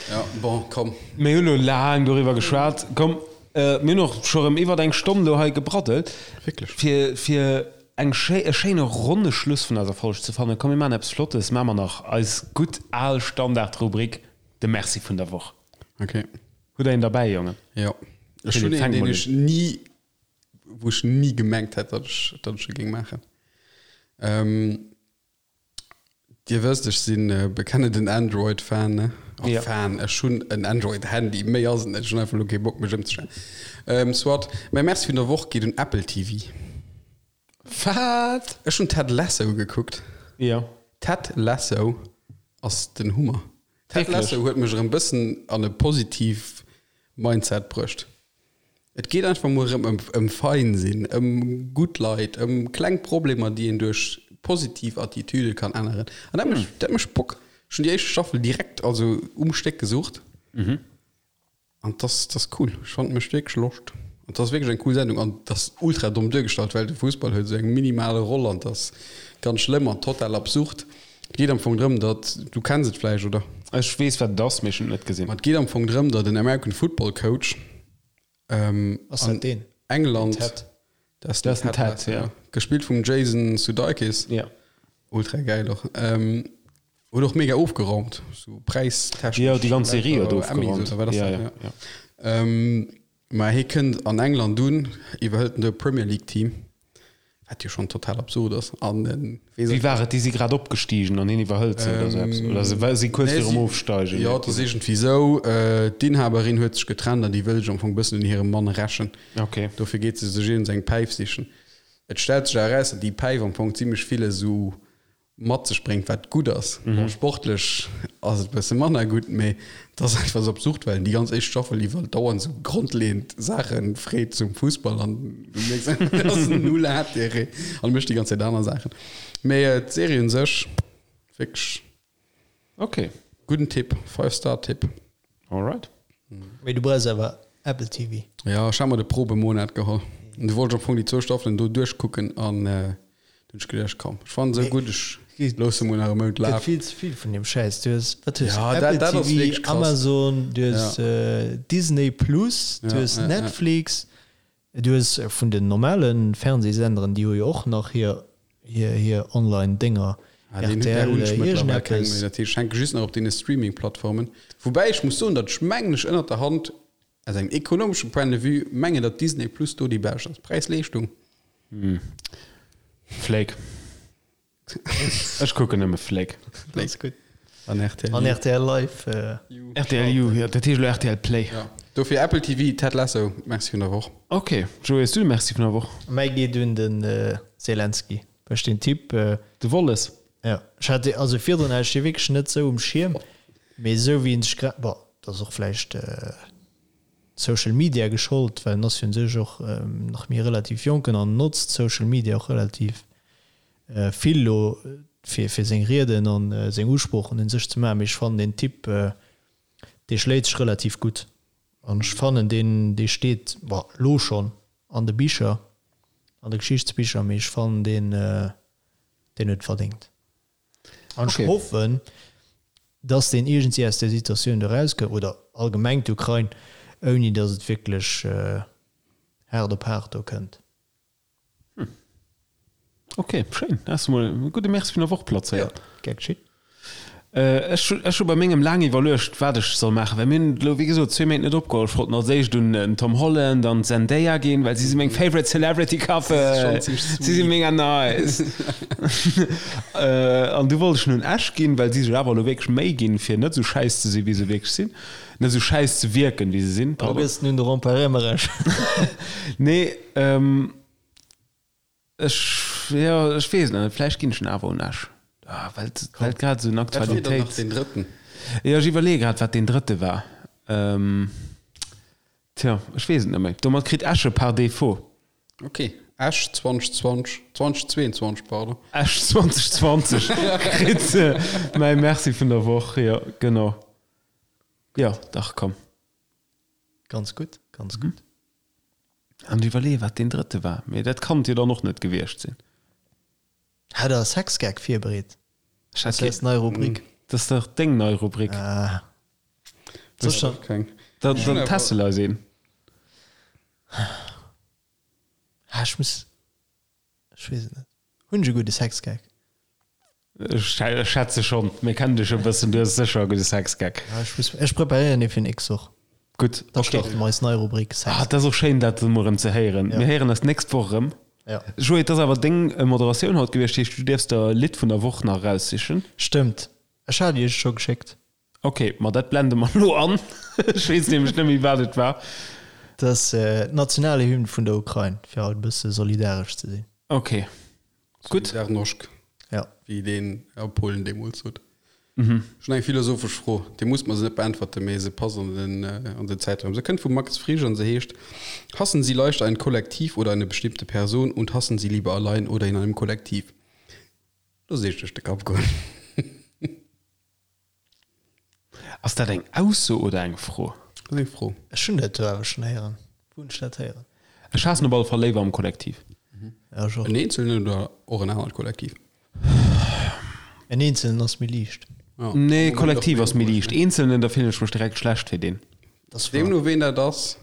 Ja, bon, komm. Mir hunn elo laang doriwwer geschwat. Komm, mir hunn och scho rëm iwwert eng Stonn elo hei gebraddelt. Wierklech? Fir, fir eng schéi, e schéine ronne Schluss vun eiser Folg ze fannen, komm mir maachen eppes Flottes, maache mer nach eis gutt al Standardrubrik, de Merci vun der Woch. Okay. Hutt Der een derbäi, Jongen? Jo. Ech hunn Philippe, een, fänk deen mol ech un. ni, wou ech ni gemengt hätt, datt ech, datt ech e géing maachen. Dir wësst, ech sinn bekennenden Android-Fan, ne? Oh, Ja. Fan, ech hunn en Android-Handy, méi ass et net. Ech hunn einfach elo kee Bock, mech ëmzestellen. Ähm, soit, mäi Merci vun der Woch geet un Apple TV. Wat? Ech hunn Ted Lasso gekuckt. Ja. Ted Lasso ass den Hummer. Ted Wierklech? Lasso huet mech erëm bëssen an e positiv Mindset bruecht. Et geet einfach mol erëm ëm, ëm fein sinn, ëm gutt Leit, ëm kleng Problemer, déi een duerch. positiv Attitüde kann änneren. An dat mécht, dat mécht Bock. Ech hunn déi éischt Staffel direkt, also um Stéck gesucht. An das, das cool. Ech fand mécht wierklech Loscht. An das ass wierklech eng cool Sendung. An das ultra domm duergestallt, well de Fussball huet esou eng minimale Roll an das ganz schlëmm an total absurd. Et geet am Fong drëm, datt, du kenns et vläicht, oder? Ech weess wat et ass, mee ech hunn et net gesinn. Ma et geet am Fong drëm, datt en American Football Coach Ass dat an deen? England, Den Ted. Dat ass den Ted, Ted Lasso, ja. Gespillt vum Jason Sudeikis. Ja. Ultra gäil och. Huet och mega ofgeraumt, sou präistechnesch. Jo, déi ganz Serie huet Emmys ofgeraumt. oder wat ass Ja, dat? ja, Ja. Mä hie kënnt an England un, iwwerhëlt en do e Premier League Team, wat jo schonn total absurd ass. An en weess Wéi war et? Déi si grad opgestigen an hien iwwerhëlt se oder sou eppes? Oder se wa si kuerz Nee, virum si, Ofsteigen? jo, et ass iergendwéi sou, d'Inhaberin huet sech getrennt an déi wëll sech am Fong e bëssen un hirem Mann rächen. Okay. Dofir geet se sech iergends eng Päif sichen. Et stellt sech awer eraus, datt déi Päif am Fong zimmlech vill esou mat sech bréngt, wat gutt ass. Bon, sportlech ass et e bësse manner gutt, mee et ass einfach esou absurd, well en déi ganz éischt Staffel iwwer dauernd esou grondleeënd Saache freet zum Fussball an du mierks einfach, et ass null Intérêt an e mécht déi ganz Zäit aner Saachen. Mee d'Serie un sech, wierklech Ok. gudden Tipp, Five-Star-Tipp. Alright. Mee du brauchs awer Apple TV. Jo, ech hat mer de Probemonat geholl. An du wollt ech am Fong déi zwou Staffelen do duerchkucken an du hunn ech geduecht, komm, ech fannen se esou gutt, ech loosse mol nach e Mount Gëtt lafen. vill ze vill vun deem Schäiss. Du hues, wat hues Ja, du? dat, Apple dat ass TV, wierklech krass. Amazon, du hues Ja. Disney Plus, du Ja, hues ja, ja. Netflix, du hues vun den normale Fernsehsenderen, déi hu jo och nach hir, hir, hir Online-Dénger, Ah, deen, där rtl, hunn ech mëttlerweil keng méi. iergendeppes. Dat heescht, ech hänke just nach op deene Streaming-Plattformen. Woubäi ech muss soen, datt ech mengen ech ënnert der Hand, aus engem ekonomeschen Point de vue, mengen, datt Disney Plus do déi bescht ass. Präis-Leeschtung. Flake. Ech kucken nëmme Flake. Dat ass gutt. An rtl An U. rtl Live. Rtl U, jo, dat heescht elo rtl Play. Ja. Dofir Apple TV, Ted Lasso, Merci vun der Woch. Ok, Joé, hues du de Merci vun der Woch? Mäi geet un den Zelensky. Well ech deen Typ. De Wolles? Jo, ech hat dee, also virdrun hat ech dee wierklech net sou um Schierm, mee esou wéi en sech grad, bon, dat ass och vläicht Social Media geschollt, well en ass jo un sech och nach méi relativ jonken an notzt Social Media och relativ vill elo fir fir seng Rieden an seng Usproochen un sech ze maachen, mee ech fannen deen Typ, dee schléit sech relativ gutt an ech fannen deen, dee steet, bon, elo schonn an de Bicher, an de Geschichtsbicher, mee ech fannen deen, deen huet et verdéngt. An ech hoffen, dass deen iergendwéi aus där Situatioun do erauskënnt, oder allgemeng d'Ukrain, ouni dass et wierklech haart op haart do kënnt. Ok, schéin. Da has de mol e gudde Merci vun der Woch plazéiert. Gär geschitt. Ech ech hu bei mengem laang iwwerluecht, wat ech soll maachen, well mir hunn elo, wéi gesot, zwee Méint net opgeholl. Ech wollt als éischt un den Tom Holland an d'Zendaya ginn, well si si meng favorite celebrity couple. Si si mega nice. An du wollt ech un Esch ginn, well si sech awer elo wierklech Méi ginn, fir net esou schäiss ze sinn, wéi se wierklech sinn. Net esou schäiss ze wierken, wéi se sinn, Da pardon. gëss den un de Rempart Emmerech. Nee, ech, jo, ech weess et nach net. Vläicht ginn ech en awer un Esch. Ah, well et, well et grad esou en Wat wier dann nach Aktualitéits. deen drëtten? Jo, ech iwwerleeë grad, wat deen drëtte war. Tja, ech weess et net méi. Domat kritt Esch e par défaut. Ok, Esch 2020, 2022, pardon. Esch 2020 kritt mäi Merci vun der Woch, jo, genau. Jo, dach, komm. Ganz gutt, ganz gutt. An ech iwwerleeë wat deen drëtte war, mee dat kann et jo dann och net gewiescht sinn. Hat der e Sexgag virbereet? Ech Dat hat ass eis nei Rubrik. Dat ass dach deng nei Rubrik. Ah. Soll ech dann. Keng. Dann, dann teste eis een. Ah, ech muss. Ech weess et net. Hunn ech e gudde Sexgag? Ech schätze schonn. Mir kennen dech e bëssen, du hues sécher e gudde Sexgag. Ja, ech muss, ech preparéieren ee fir nächst Woch. Gutt, Da okay. starte mer eis nei Rubrik Ah, Sex. dat ass och schéin, dat emol erëm ze héieren. Ja. Mir héieren eis d'nächst Woch erëm. Ja. Joé, et ass awer deng Moderatioun haut gewiescht, heescht du dierfs der e Lidd vun der Woch nach eraussichen. Stëmmt. Ech hat iech et scho geschéckt. Ok, ma dat blende mer elo an. Ech weess nämlech net méi, wat et war. Dat ass d'Nationalhymn vun der Ukrain, fir haut e bësse solidaresch ze sinn. Ok, gutt. Solidarnosc, Ja. wéi deen a Polen deemools sot. Ech hunn eng philosophesch Fro, Dir musst mer se net beäntwerten, mee se passt an den, an den Zäitraum. Se kënnt vum Max Frisch an se heescht, Hassen Sie leichter ein Kollektiv oder eine bestimmte Person und hassen Sie lieber allein oder in einem Kollektiv? Looss iech duerch de Kapp goen. Ass dat eng Ausso oder eng Fro? Dat ass eng Fro. Ech hunn dat do awer schonn héieren. Wou hunn ech dat héieren? Ech haassen op alle Fall léiwer am Kollektiv. Ja, ech och. En Eenzelnen oder och en anert Kollektiv? En Eenzelnen ass méi liicht. Ja. Nee, Kollektiv ass méi liicht. Eenzelnen, da fillen ech mech direkt schlecht fir deen. Dat ass wahr. Deemno ween dat ass,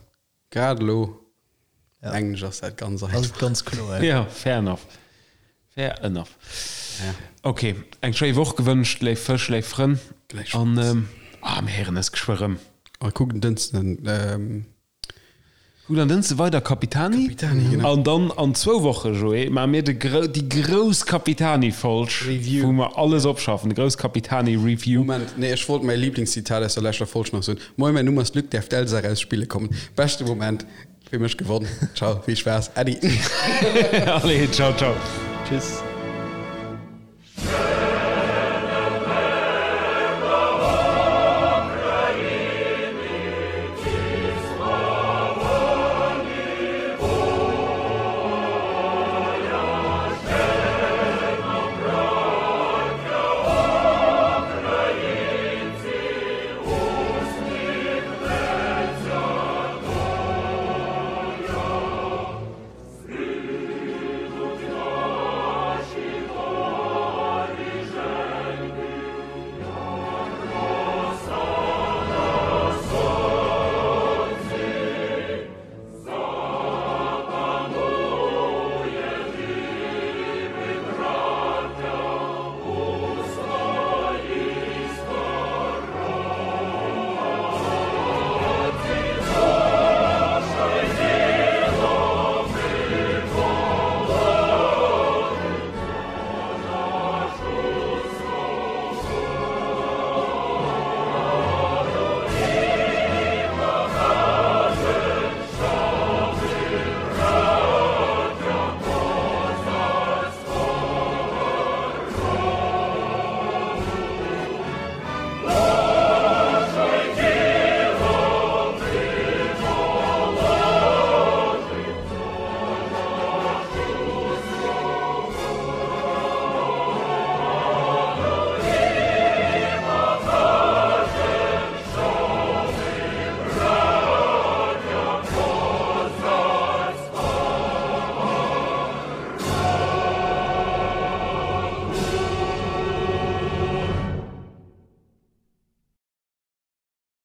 Grad elo Ja. mengen ech ass dat ganz Ass einfach. et ganz kloer, ja. Ja, fair enough. Fair enough. Ja. Ok, eng schéi Woch gewënscht, léif Fësch, léif Frënn. Gläichfalls. An ähm, ah, mir héieren eis geschwë rëm. A kuckt en Dënschden ähm, Kuckt an Dënschde weider Capitani. Capitani, genau. An dann an zwou Woche, Joé, maache mir de grou, déi grouss Capitani-Folg, Review. wou mer alles opschaffen, de grouss Capitani-Review. Moment, nee, ech wollt mäi Lieblingszitat aus der leschter Folg nach soen. Moin, mäin Numm ass Luc, däerf d'Elsa raus spille kommen. Beschte Moment, fir mech gewonn. Ciao, vill Spaass, Äddi. Allez, ciao, ciao. Tschüss.